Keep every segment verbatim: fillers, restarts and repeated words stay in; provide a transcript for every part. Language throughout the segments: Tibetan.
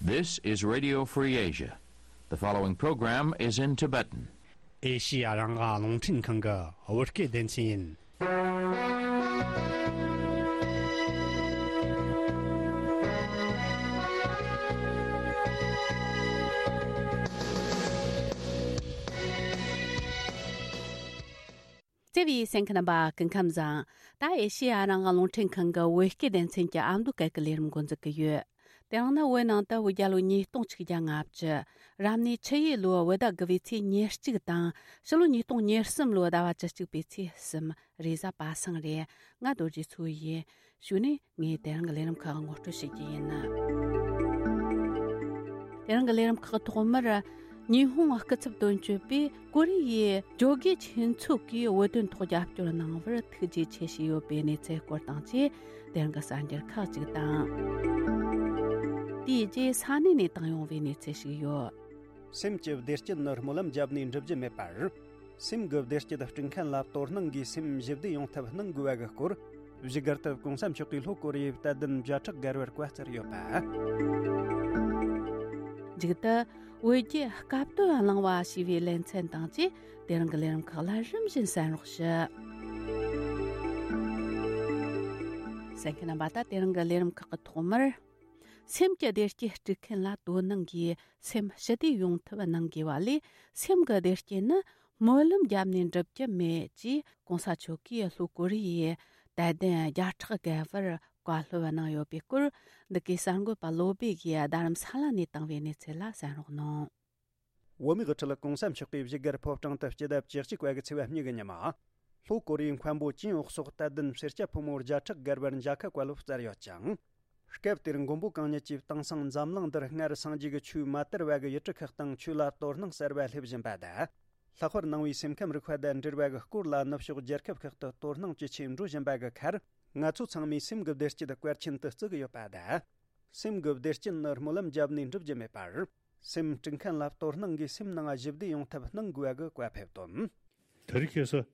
This is Radio Free Asia. The following program is in Tibetan. ཨེ་ཤི་ཡ་རང་དབང་རླུང་འཕྲིན་ཁང་གི་བོད་སྐད་སྡེ་ཚན་ཡིན། བརྩེ་བའི་གསན་མཁན་རྣམ་པ་སྐུ་ཁམས་བཟང་། ད་ཨེ་ཤི་ཡ་རང་དབང་རླུང་འཕྲིན་ཁང་གི་བོད་སྐད་སྡེ་ཚན་གྱི་ཨ་མདོ་སྐད་ཀྱི་ལས་རིམ་འགོ་འཛུགས་ཀྱི་ཡོད། དེ་རིང་ནི་བོད་ནང་དུ་བོད་རྒྱལ་ལོ་ཉིས་སྟོང་ཆིག་བརྒྱ་ལྔ་བཅུ། རབ་གནས་ཆུ་ཡོས་ལོའི་བོད་ཟླ་དགུ་པའི་ཚེས་ཉེར་གཅིག་དང་། ཕྱི་ལོ་ཉིས་སྟོང་ཉེར་གསུམ་ལོའི་ཟླ་བ་བཅུ་གཅིག་པའི་ཚེས་གསུམ། རེས་གཟའ་པ་སངས་རེད། ང་རྡོ་རྗེ་མཚོ་ཡིས། གཞུག་ནས་ངས་དེ་རིང་གི་ལས་རིམ་ཁག་ངོ་སྤྲོད་བྱེད་རྒྱུ་ཡིན། དེ་རིང་གི་ལས་རིམ་ཁག་ཐོག་མར། ཉི་ཧོང་སྐུ་ཚབ་དོན་གཅོད་པས་ཀོ་རི་ཡའི་ཇོ་གེ་ཆོས་མཚོ་གིས་བོད་དོན་ཐོག་རྒྱབ་སྐྱོར་གནང་བར་ཐུགས་རྗེ་ཆེ་ཞུས་ཡོད་པའི་གནས་ཚུལ་སྐོར་དང་བཅས། དེ་རིང་གི་གསར་འགྱུར་ཁག་ཅིག་དང་། དེའི་རྗེས་ས་གནས་ནས་བཏང་ཡོང་བའི་གནས་ཚུལ་ཞིག་ཡོད། སེམས་ཀྱི་བདེ་སྐྱིད་ནི་སྨོན་ལམ་བརྒྱབ་ནས་འགྲུབ་རྒྱུ་མེད་པར། སེམས་ཀྱི་བདེ་སྐྱིད་སྤྲུལ་མཁན་ལ་དོ་སྣང་གིས་སེམས་ཞི་བདེ་ཡོང་ཐབས་གནང་དགོས་པ་གི་སྐོར། བཞུགས་སྒར་དུ་གོང་ས་མཆོག་གིས་ལྷོ་ཀོ་རི་ཡའི་དད་ལྡན་བརྒྱ་ཕྲག་བརྒལ་བར་བཀའ་སྩལ་ཡོད་པ། མཇུག་ཏུ། བོད་རྒྱའི་སྐབས་དོན་གླེང་བ་ཞེས་པའི་ལེ་ཚན་དང་བཅས། དེ་རིང་གི་ལས་རིམ་ཁག་ལ་རིམ་བཞིན་གསན་རོགས་ཞུ། གསན་མཁན་རྣམ་པ། ད་དེ་རིང་གི་ལས་རིམ་ཁག་གི་ཐོག་མར། སེམས་ཀྱི་བདེ་སྐྱིད་སྤྲུལ་མཁན་ལ་དོ་སྣང་གིས་སེམས་ཞི་བདེ་ཡོང་ཐབས་གནང་དགོས་པ་ལས། སེམས་ཀྱི་བདེ་སྐྱིད་ནི་སྨོན་ལམ་བརྒྱབ་ནས་འགྲུབ་རྒྱུ་མེད་ཅེས་གོང་ས་མཆོག་གིས་ལྷོ་ཀོ་རི་ཡའི་དད་ལྡན་བརྒྱ་ཕྲག་བརྒལ་བར་བཀའ་སློབ་གནང་ཡོད་པའི་སྐོར། འདི་གའི་གསར་འགོད་པ་བློ་བྷེ་ཡིས་རྡ་རམ་ས་ལ་ནས་བཏང་བའི་གནས་ཚུལ་ལ་གསན་རོགས་གནང་། བོད་མིའི་དབུ་ཁྲིད་གོང་ས་མཆོག་གིས་བཞུགས་སྒར་ཕོ་བྲང་དུ་སྤྱི་ཟླ་བཅུ་གཅིག་པ་གི་ཚེས་པ་གཉིས་ཀྱི་ཉིན་མ། ལྷོ་ཀོ་རི་ཡའི་མཁན་པོ་ཅིན་ཨོག་སོགས་དད་ལྡན་སེར་སྐྱ་ཕོ་མོ་བརྒྱ་ཕྲག་བརྒལ་བར་མཇལ་ཁ་བཀའ་སློབ་སྩལ་ཡོད་ཅིང་། སྐབས་དེར་མགོན་པོ་གང་ཉིད་ཀྱིས་དེང་སང་འཛམ་གླིང་འདིར་སྔར་སངས་རྒྱས་ཀྱི་ཆོས་མ་དར་བ་གི་ཡུལ་གྲུ་ཁག་དང་ཆོས་ལ་དོ་སྣང་གསར་བ་སླེབས་བཞིན་པ་དང་། ལྷག་པར་ནང་པའི་སེམས་ཁམས་རིག་པ་དང་འབྲེལ་བ་གི་སྐོར་ལ་ནུབ་ཕྱོགས་རྒྱལ་ཁབ་ཁག་ཏུ་དོ་སྣང་ཇེ་ཆེ་འགྲོ་བཞིན་པ་གི་ཁར། ང་ཚོ་ཚང་མས་སེམས་ཀྱི་བདེ་སྐྱིད་གལ་ཆེན་དུ་བརྩི་གི་ཡོད་པ་དང་། སེམས་ཀྱི་བདེ་སྐྱིད་ནི་སྨོན་ལམ་བརྒྱབ་ནས་འགྲུབ་རྒྱུ་མེད་པར། སེམས་སྤྲུལ་མཁན་ལ་དོ་སྣང་གིས་སེམས་ནང་ཞི་བདེ་ཡོང་ཐབས་གནང་དགོས་པ་གི་བཀའ་ཕེབས་དོན། དེ་རིང་ཁ་སང་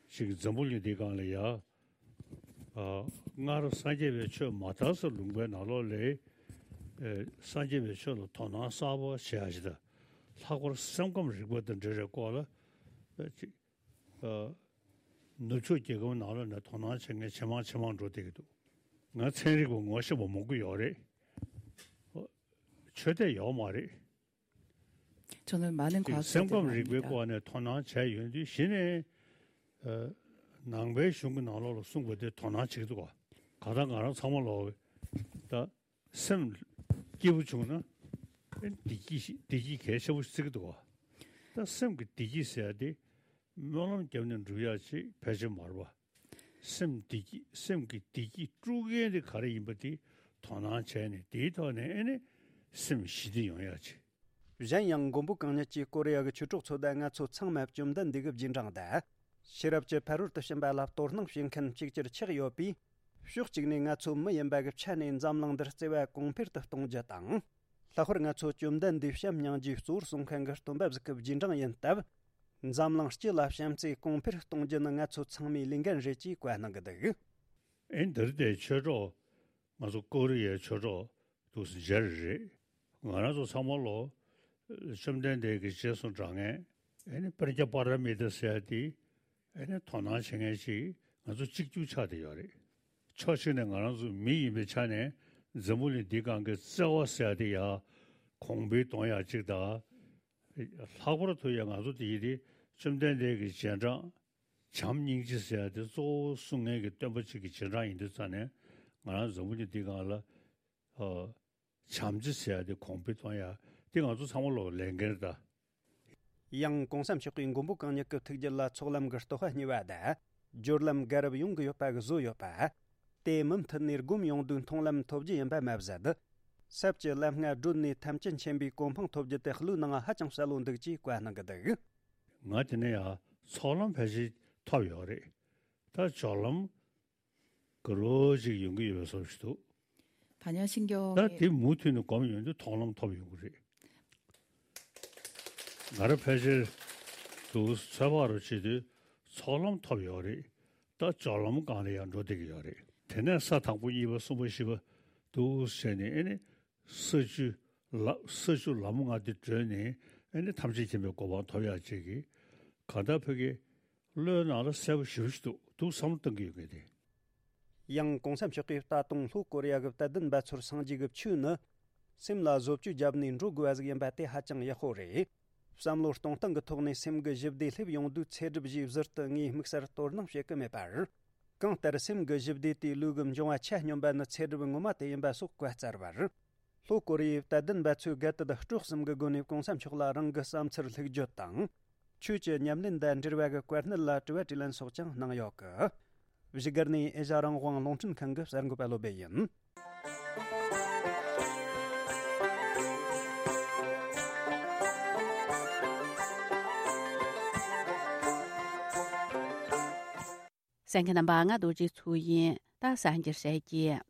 ཅིག་འཛམ་བུ་གླིང་འདིའི་སྒང་ལ་ཡ། ཨ། སྔར་སངས་རྒྱས་པའི་ཆོས་མ་དར་སའི་ལུང་པའི་ནང་ལོགས་ལ། ཨེ། སངས་རྒྱས་པའི་ཆོས་ལ་དོ་སྣང་གསར་པ་བྱེད་ཡ་ཞིག་དང་། ལྷག་པར་སེམས་ཁམས་རིག་པ་དང་འབྲེལ་བའི་སྐོར་ལ། ཨེ། ཅིག་ཨ། ནུབ་ཕྱོགས་རྒྱལ་ཁབ་ནང་ལོགས་ནས་དོ་སྣང་བྱེད་མཁན་ཇེ་མང་ཇེ་མང་འགྲོ་བསྡད་ཀྱི་འདུག་ང་ཚན་རིག་པ་ངོ་ཤེས་པ་མང་པོ་ཡོད་རེད། ཨ། ཆོས་དད་ཡོད་མ་རེད། ཅིག་སེམས་ཁམས་རིག་པའི་སྐོར་ནས་དོ་སྣང་བྱས་ཡོང་དུས། གཞི་ནས། ཨ། ནང་པའི་གཞུང་གི་ནང་ལོགས་ལ་གསུངས་པ་དེ་དོ་སྣང་བྱེད་ཀྱི་འདུག་ག་གང་ལྟར་ང་རང་ཚང་མ་ལོག་ད། སེམས་སྐྱིད་པོ་བྱུང་ན། ཨེ། བདེ་སྐྱིད་ཞིག་བདེ་སྐྱིད་གལ་ཆེན་པོ་ཞིག་བརྩི་གི་འདུག་ག་ད་སེམས་ཀྱི་བདེ་སྐྱིད་ཟེར་ཡ་དེ་སྨོན་ལམ་བརྒྱབ་ནས་འགྲུབ་ཡ་ཅིག་ཕལ་ཆེར་མ་རེད་པ། སེམས་བདེ་སྐྱིད། སེམས་ཀྱི་བདེ་སྐྱིད་དཀྲུག་མཁན་དེ་ག་རེ་ཡིན་པ་དེ་དོ་སྣང་བྱས་ནས། དེའི་ཐོག་ནས་ཨེ་ནས་སེམས་ཞི་བདེ་ཡོང་ཡ་ཅིག་གཞན་ཡང་མགོན་པོ་གང་ཉིད་ཀྱིས་ཀོ་རི་ཡ་གི་ཆོས་གྲོགས་ཚོ་དང་ང་ཚོ་ཚང་མ་བཅོམ་ལྡན་འདས་ཀྱི་རྗེས་འབྲང་དང་། ཤེས་རབ་ཀྱི་ཕ་རོལ་ཏུ་ཕྱིན་པ་ལ་དོ་སྣང་བྱེད་མཁན་གཅིག་གྱུར་ཆགས་ཡོད་པས། ཕྱོགས་གཅིག་ནས་ང་ཚོ་མི་ཡིན་པ་གི་ཆ་ནས་འཛམ་གླིང་འདིར་བརྩེ་བ་གོང་འཕེལ་དུ་གཏོང་རྒྱུ་དང་། ལྷག་པར་ང་ཚོ་བཅོམ་ལྡན་འདས་བྱམས་སྙིང་རྗེ་གཙོ་བོར་གསུངས་མཁན་གྱི་སྟོན་པ་ཟིག་གི་རྗེས་འབྲང་ཡིན་སྟབས། འཛམ་གླིང་སྤྱི་ལ་བྱམས་བརྩེ་གོང་འཕེལ་གཏོང་རྒྱུ་ནི་ང་ཚོ་ཚང་མའི་ལས་འགན་རེད་ཅེས་བཀའ་གནང་གི་འདུག་ཨེ། འདིར་དེ་ཆོས་གྲོགས། ང་ཚོ་ཀོ་རི་ཡའི་ཆོས་གྲོགས་འདུག་སེ་མཇལ་རེ་རེད། ང་རང་ཚོ་ཚང་མ་ལོ། བཅོམ་ལྡན་འདས་ཀྱི་རྗེས་སུ་འབྲང་མཁན། ཨེ་ནི་པཉྩ་པ་ར་མི་ཏ་ཟེར་ཡ་དེ། ཨེ་ནི་དོ་སྣང་བྱེད་མཁན་ཞིག་ང་ཚོ་གཅིག་གྱུར་ཆགས་བསྡད་ཡོད་རེད། ཕྱོགས་གཅིག་ནས་ང་རང་ཚོ་མི་ཡིན་པའི་ཆ་ནས་འཛམ་བུ་གླིང་འདིའི་སྒང་གི་བརྩེ་བ་ཟེར་ཡ་དེ་ཡར་གོང་འཕེལ་གཏོང་ཡ་གཅིག་དང་། ལྷག་པར་དུ་ཡང་ང་ཚོ་དེ་ཡི་དེ་བཅོམ་ལྡན་འདས་ཀྱི་རྗེས་འབྲང་། བྱམས་སྙིང་རྗེ་ཟེར་ཡ་དེ་གཙོ་བོ་གསུང་མཁན་གྱི་སྟོན་པ་གཅིག་གི་རྗེས་འབྲང་ཡིན་དུས་ཙང་ནས། ང་རང་འཛམ་བུ་གླིང་འདིའི་སྒང་ལ། ཨ། བྱམས་བརྩེ་ཟེར་ཡ་དེ་གོང་འཕེལ་གཏོང་ཡ་དེ་ང་ཚོ་ཚང་མ་ལོག་ལས་འགན་རེད་ད། ཡང་གོང་ས་མཆོག་གིས་མགོན་པོ་གང་ཉིད་ཀྱི་ཐུགས་རྒྱུད་ལ་ཚོགས་ལམ་གྱི་རྟོགས་པ་རྙེད་པ་དང་། སྦྱོར་ལམ་ག་རབ་ཡོང་གི་ཡོད་པ་གི་བཟོ་ཡོད་པ། དེ་མུ་མཐུད་ནས་སྒོམ་ཡོང་དུས་མཐོང་ལམ་ཐོབ་རྒྱུ་ཡིན་པ་མ་ཟད། ཟབ་ཀྱི་ལམ་ལྔ་བགྲོད་ནས་ཐམས་ཅད་མཁྱེན་པའི་གོ་འཕང་ཐོབ་རྒྱུ་དེ་ལུས་ནང་ཧ་ཅང་གསལ་པོ་འདུག་ཅེས་བཀའ་གནང་གི་འདུག་ང་དེ་ནས་ཡང་ཚོགས་ལམ་ཕལ་ཆེར་ཐོབ་ཡོད་རེད། ད་སྦྱོར་ལམ་གི་རོ་ཅིག་ཡོང་གི་ཡོད་པའི་བཟོ་ཞིག་འདུག་བ་ཉག་ཤིང་ཀྱོ། ད་དེ་མུ་མཐུད་ནས་སྒོམ་ཡོང་དུས་མཐོང་ལམ་ཐོབ་ཡོང་གི་རེད། ང་རང་ཕལ་ཆེར་འདུག་ཚོད་དཔག་རུ་བྱེད་དུས་ཚོགས་ལམ་ཐོབ་ཡོད་རེད། ད་སྦྱོར་ལམ་སྒང་ལ་ཡང་འགྲོ་བསྡད་ཀྱི་ཡོད་རེད། དེ་ནས་ས་དང་པོ་གཉིས་པ་གསུམ་པ་བཞི་པ་འདུག་བྱས་ནས། ཨེ་ནི་ས་བཅུ། ལ་ས་ཆུ་ལ་མོ་ལྔ་སྡེ་བགྲོད་ནས་ཨ་ནི་ཐམས་ཅད་མཁྱེན་པའི་གོ་འཕང་ཐོབ་ཡག་ཅིག་གི་གང་ལྟར་ཕ་གི་བློའི་ནང་ལ་གསལ་པོ་ཞེ་པོ་ཞིག་འདུག་འདུག་བསམ་བློ་གཏོང་གི་ཡོད་མཁན་དེ། ཡང་གོང་ས་མཆོག་གིས་ད་དུང་ལྷོ་ཀོ་རི་ཡ་གི་དད་ལྡན་འབད་ཚོར་སངས་རྒྱས་ཀྱི་ཆོས་ནི་སེམས་ལ་བཟོ་བཅོས་བརྒྱབ་ནས་འགྲོ་དགོས་པ་ཟིག་ཡིན་པ་དེ་ཧ་ཅང་ཡག་པོ་རེད། བསམ་བློ་གཏོང་སྟངས་ཀྱི་ཐོག་ནས་སེམས་ཀྱི་ཞི་བདེ་སླེབས་ཡོང་དུས་ཚེ་སྒྲུབ་ཞེས་ཟུར་དུ་ངས་དམིགས་བསལ་དོ་སྣང་བྱེད་ཀྱི་མེད་པར། གང་ལྟར་སེམས་ཀྱི་ཞི་བདེ་དེ་ལུས་ཀྱི་འབྱུང་བ་ཆ་སྙོམས་པ་ནི་ཚེ་སྒྲུབ་ངོ་མ་དེ་ཡིན་པ་སོགས་བཀའ་སྩལ་བར། ལྷོ་ཀོ་རི་ཡའི་དད་ལྡན་འབད་ཚོས་དགའ་དད་སྤྲོ་གསུམ་གྱི་སྒོ་ནས་གོང་ས་མཆོག་ལ་རང་གི་བསམ་ཚུལ་ལྷུག་བརྗོད་དང་། ཆོས་ཀྱི་ཉམས་ལེན་དང་འབྲེལ་བ་གི་བཀའ་གནད་ལ་དྲི་བ་དྲིས་ལན་སོགས་ཀྱང་གནང་ཡོད་གི། བཞུགས་སྒར་ནས་ཨེ་ཤ་རང་དབང་རླུང་འཕྲིན་ཁང་གི་གསར་འགོད་པ་བློ་སྦེ་ཡིན། གསན་མཁན་རྣམ་པ། ང་རྡོ་རྗེ་མཚོ་ཡིན། ད་གསར་འགྱུར་བཤད་རྒྱུ།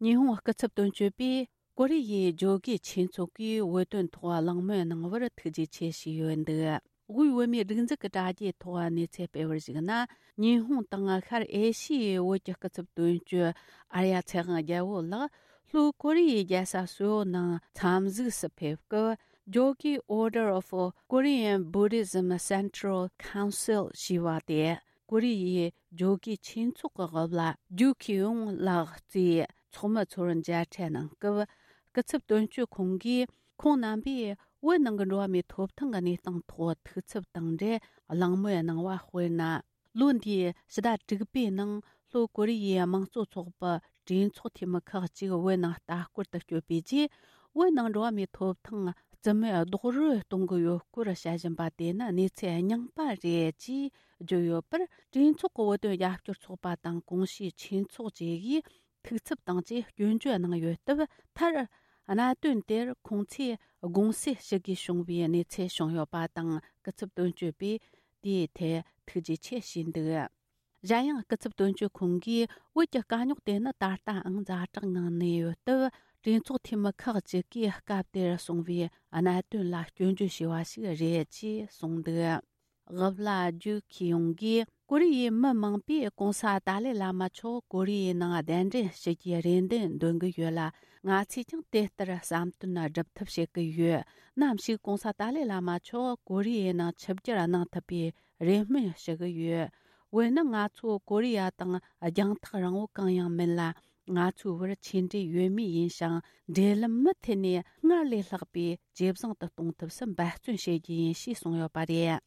ཉི་ཧོང་སྐུ་ཚབ་དོན་གཅོད་པས་ཀོ་རི་ཡའི་ཇོ་གི་ཆོས་ཚོགས་ཀྱིས་བོད་དོན་ཐོག་གླེང་མོལ་གནང་བར་ཐུགས་རྗེ་ཆེ་ཞུས་ཡོད་འདུག་དབུས་བོད་མིའི་སྒྲིག་འཛུགས་ཀྱི་དྲ་རྒྱའི་ཐོག་གནས་ཚུལ་སྤེལ་བར་གཞིགས་ན། ཉི་ཧོང་དང་ཤར་ཨེ་ཤི་ཡའི་བོད་ཀྱི་སྐུ་ཚབ་དོན་གཅོད་ཨར་ཡ་ཚེ་དབང་རྒྱལ་པོ་ལགས་ལྷོ་ཀོ་རི་ཡའི་རྒྱལ་ས་སུའོ་ནང་འཚམས་གཟིགས་སུ་ཕེབས་སྐབས། Jogi Order of Korean Buddhism Central Council ཞེས་པ་དེ། ཀོ་རི་ཡའི་ཇོ་གི་ཆོས་ཚོགས་ཀྱི་དབུ་བླ་ཇུ་ཁི་ཡུང་ལགས་ཀྱིས་ཚོགས་མི་ཚོར་མཇལ་འཕྲད་གནང་སྐབས། སྐུ་ཚབ་དོན་གཅོད་ཁོང་གིས། ཁོང་རྣམ་པས་བོད་ནང་གི་འགྲོ་བ་མིའི་ཐོབ་ཐང་གི་གནས་སྟངས་ཐོག་ཐུགས་འཚབ་དང་འབྲེལ་གླེང་མོལ་གནང་བ་དཔེར་ན། ལོ་འདིའི་ཕྱི་ཟླ་དྲུག་པའི་ནང་ལྷོ་ཀོ་རི་ཡའི་དམངས་གཙོ་ཚོགས་པའི་གྲོས་ཚོགས་འཐུས་མི་ཁག་ཅིག་བོད་ནང་ལྟ་སྐོར་དུ་བསྐྱོད་པའི་རྗེས། བོད་ནང་འགྲོ་བ་མིའི་ཐོབ་ཐང་རྩིས་མེད་རྡོག་རོལ་གཏོང་གི་ཡོད་སྐོར་བཤད་བཞིན་པ་དེ་ནི་གནས་ཚུལ་རྙིང་པ་རེད་ཅེས་བརྗོད་ཡོད་པར། གྲོས་ཚོགས་ཀྱི་བོད་དོན་རྒྱབ་སྐྱོར་ཚོགས་པ་དང་གོང་ཞུས་ཆོས་ཚོགས་བཅས་ཀྱིས་ཐུགས་འཚབ་དང་བཅས་སྐྱོན་བརྗོད་གནང་ཡོད་སྟབས། མཐར་གནད་དོན་དེར་ཁོང་ཚོས་དགོངས་སེལ་ཞུ་དགོས་བྱུང་བའི་གནས་ཚུལ་བྱུང་ཡོད་པ་དང་། སྐུ་ཚབ་དོན་གཅོད་པས་དེའི་ཐད་ཐུགས་རྗེ་ཆེ་ཞུས་འདུག་གཞན་ཡང་། སྐུ་ཚབ་དོན་གཅོད་ཁོང་གིས་བོད་ཀྱི་དཀའ་རྙོག་དེ་ནི་ད་ལྟའང་ཛ་དྲག་ངང་གནས་ཡོད་སྟབས། གྲོས་ཚོགས་འཐུས་མི་ཁག་ཅིག་གིས་སྐབས་དེར་གསུངས་པའི་གནད་དོན་ལ་སྐྱོན་བརྗོད་བྱས་པ་ཞིག་རེད་ཅེས་གསུངས་འདུག་དབུ་བླ་ཇུ་ཁི་ཡུང་གིས། ཀོ་རི་ཡའི་མི་མང་པོས་གོང་ས་ཏཱ་ལའི་བླ་མ་མཆོག་ཀོ་རི་ཡའི་ནང་གདན་འདྲེན་ཞུ་རྒྱུའི་རེ་འདུན་འདོན་གྱི་ཡོད་ལ། ང་ཚོས་ཀྱང་དེ་ལྟར་བསམ་དོན་སྒྲུབ་ཐབས་བྱེད་ཀྱི་ཡོད། ནམ་ཞིག་གོང་ས་ཏཱ་ལའི་བླ་མ་མཆོག་ཀོ་རི་ཡའི་ནང་ཆིབས་བསྒྱུར་གནང་ཐུབ་པའི་རེ་སྨོན་ཞུ་གི་ཡོད། འོན་ནི་ང་ཚོ་ཀོ་རི་ཡ་དང་རྒྱང་ཐག་རིང་བོ་གང་ཡང་མིན་ལ། ང་ཚོའི་བར་ཆོས་འབྲེལ་ཡོད་མུས་ཡིན་ཞིང་། འབྲེལ་ལམ་མུ་མཐུད་ནས་སྔར་ལས་ལྷག་པའི་ཇེ་བཟང་དུ་གཏོང་ཐབས་སུ་འབད་བརྩོན་བྱེད་རྒྱུ་ཡིན་ཞེས་གསུངས་ཡོད་པ་རེད།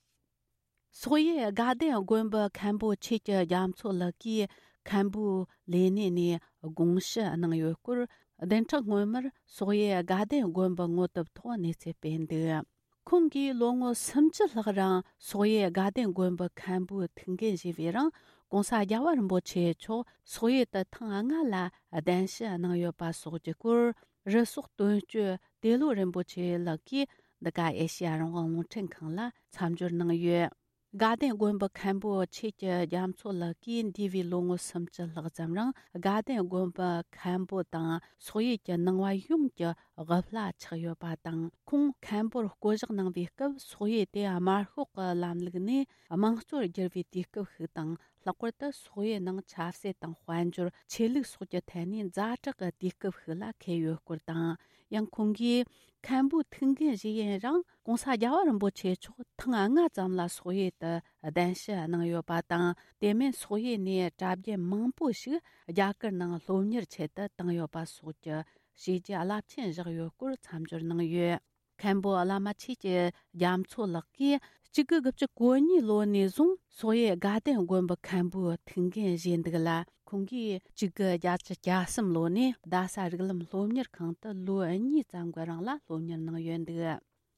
སོག་ཡུལ་དགའ་ལྡན་དགོན་པའི་མཁན་པོ་ཆོས་ཀྱི་རྒྱ་མཚོ་ལགས་ཀྱིས་མཁན་པོའི་ལས་གནས་ནས་དགོངས་ཞུ་གནང་ཡོད་སྐོར། བདུན་ཕྲག་སྔོན་མར་སོག་ཡུལ་དགའ་ལྡན་དགོན་པའི་ངོ་དེབ་ཐོག་གནས་ཚུལ་སྤེལ་འདུག་ཁོང་གིས་ལོ་ངོ་སུམ་ཅུ་ལྷག་རིང་སོག་ཡུལ་དགའ་ལྡན་དགོན་པའི་མཁན་པོའི་ཐུགས་འགན་བཞེས་པའི་རིང་། གོང་ས་རྒྱལ་བ་རིན་པོ་ཆེ་མཆོག་སོག་ཡུལ་དུ་ཐེངས་ལྔ་ལ་གདན་ཞུ་གནང་ཡོད་པ་སོགས་ཀྱི་སྐོར། རུ་ཟོག་དོན་གཅོད་ཏེ་ལོ་རིན་པོ་ཆེ་ལགས་ཀྱིས་འདི་ག་ཨེ་ཤེ་ཡ་རང་དབང་རླུང་འཕྲིན་ཁང་ལ་མཚམས་སྦྱོར་གནང་ཡོད། དགའ་ལྡན་དགོན་པའི་མཁན་པོ་ཆོས་ཀྱི་རྒྱ་མཚོ་ལགས་ཀྱིས་འདས་པའི་ལོ་ངོ་སུམ་ཅུ་ལྷག་ཙམ་རིང་དགའ་ལྡན་དགོན་པའི་མཁན་པོ་དང་སོག་ཡུལ་གྱི་ནང་པ་ཡོངས་ཀྱི་དབུ་བླ་ཆགས་ཡོད་པ་དང་། ཁོང་མཁན་པོར་བསྐོ་བཞག་གནང་བའི་སྐབས་སོག་ཡུལ་དེ་དམར་ཤོག་གི་ལམ་ལུགས་ནས་དམངས་གཙོར་བསྒྱུར་བའི་དུས་སྐབས་ཤིག་དང་། ལྷག་པར་དུ་སོག་ཡུལ་ནང་ཆབ་སྲིད་དང་དཔལ་འབྱོར། ཆོས་ལུགས་སོགས་ཀྱི་ཐད་ནས་ཛ་དྲག་གི་དུས་སྐབས་ཤིག་ལ་འཁེལ་ཡོད་སྐོར་དང་། ཡང་ཁོང་གིས་མཁན་པོའི་ཐུགས་འགན་བཞེས་ཡུན་རིང་གོང་ས་རྒྱལ་བ་རིན་པོ་ཆེ་མཆོག་ཐེངས་ལྔ་ཙམ་ལ་སོག་ཡུལ་དུ་གདན་ཞུ་གནང་ཡོད་པ་དང་། དེ་མིན་སོག་ཡུལ་ནས་གྲྭ་རྒྱུན་མང་པོ་ཞིག་རྒྱ་གར་ནང་སློབ་གཉེར་ཆེད་དུ་བཏང་ཡོད་པ་སོགས་ཀྱི་བྱས་རྗེས་རླབས་ཆེན་བཞག་ཡོད་སྐོར་མཚམས་སྦྱོར་གནང་ཡོད། མཁན་པོ་བླ་མ་ཆོས་ཀྱི་རྒྱ་མཚོ་ལགས་ཀྱིས་གཅིག་དགུ་དགུ་བཅུ་གོ་གཉིས་ལོ་ནས་བཟུང་སོག་ཡུལ་དགའ་ལྡན་དགོན་པའི་མཁན་པོའི་ཐུགས་འགན་བཞེས་འདུག་ལ། ཁོང་གིས་གཅིག་དགུ་བརྒྱད་ཅུ་གྱ་གསུམ་ལོ་ནས་རྡ་ས་རིགས་ལམ་སློབ་གཉེར་ཁང་དུ་ལོ་གཉིས་ཙམ་གྱི་རིང་ལ་སློབ་གཉེར་གནང་ཡོད་འདུག་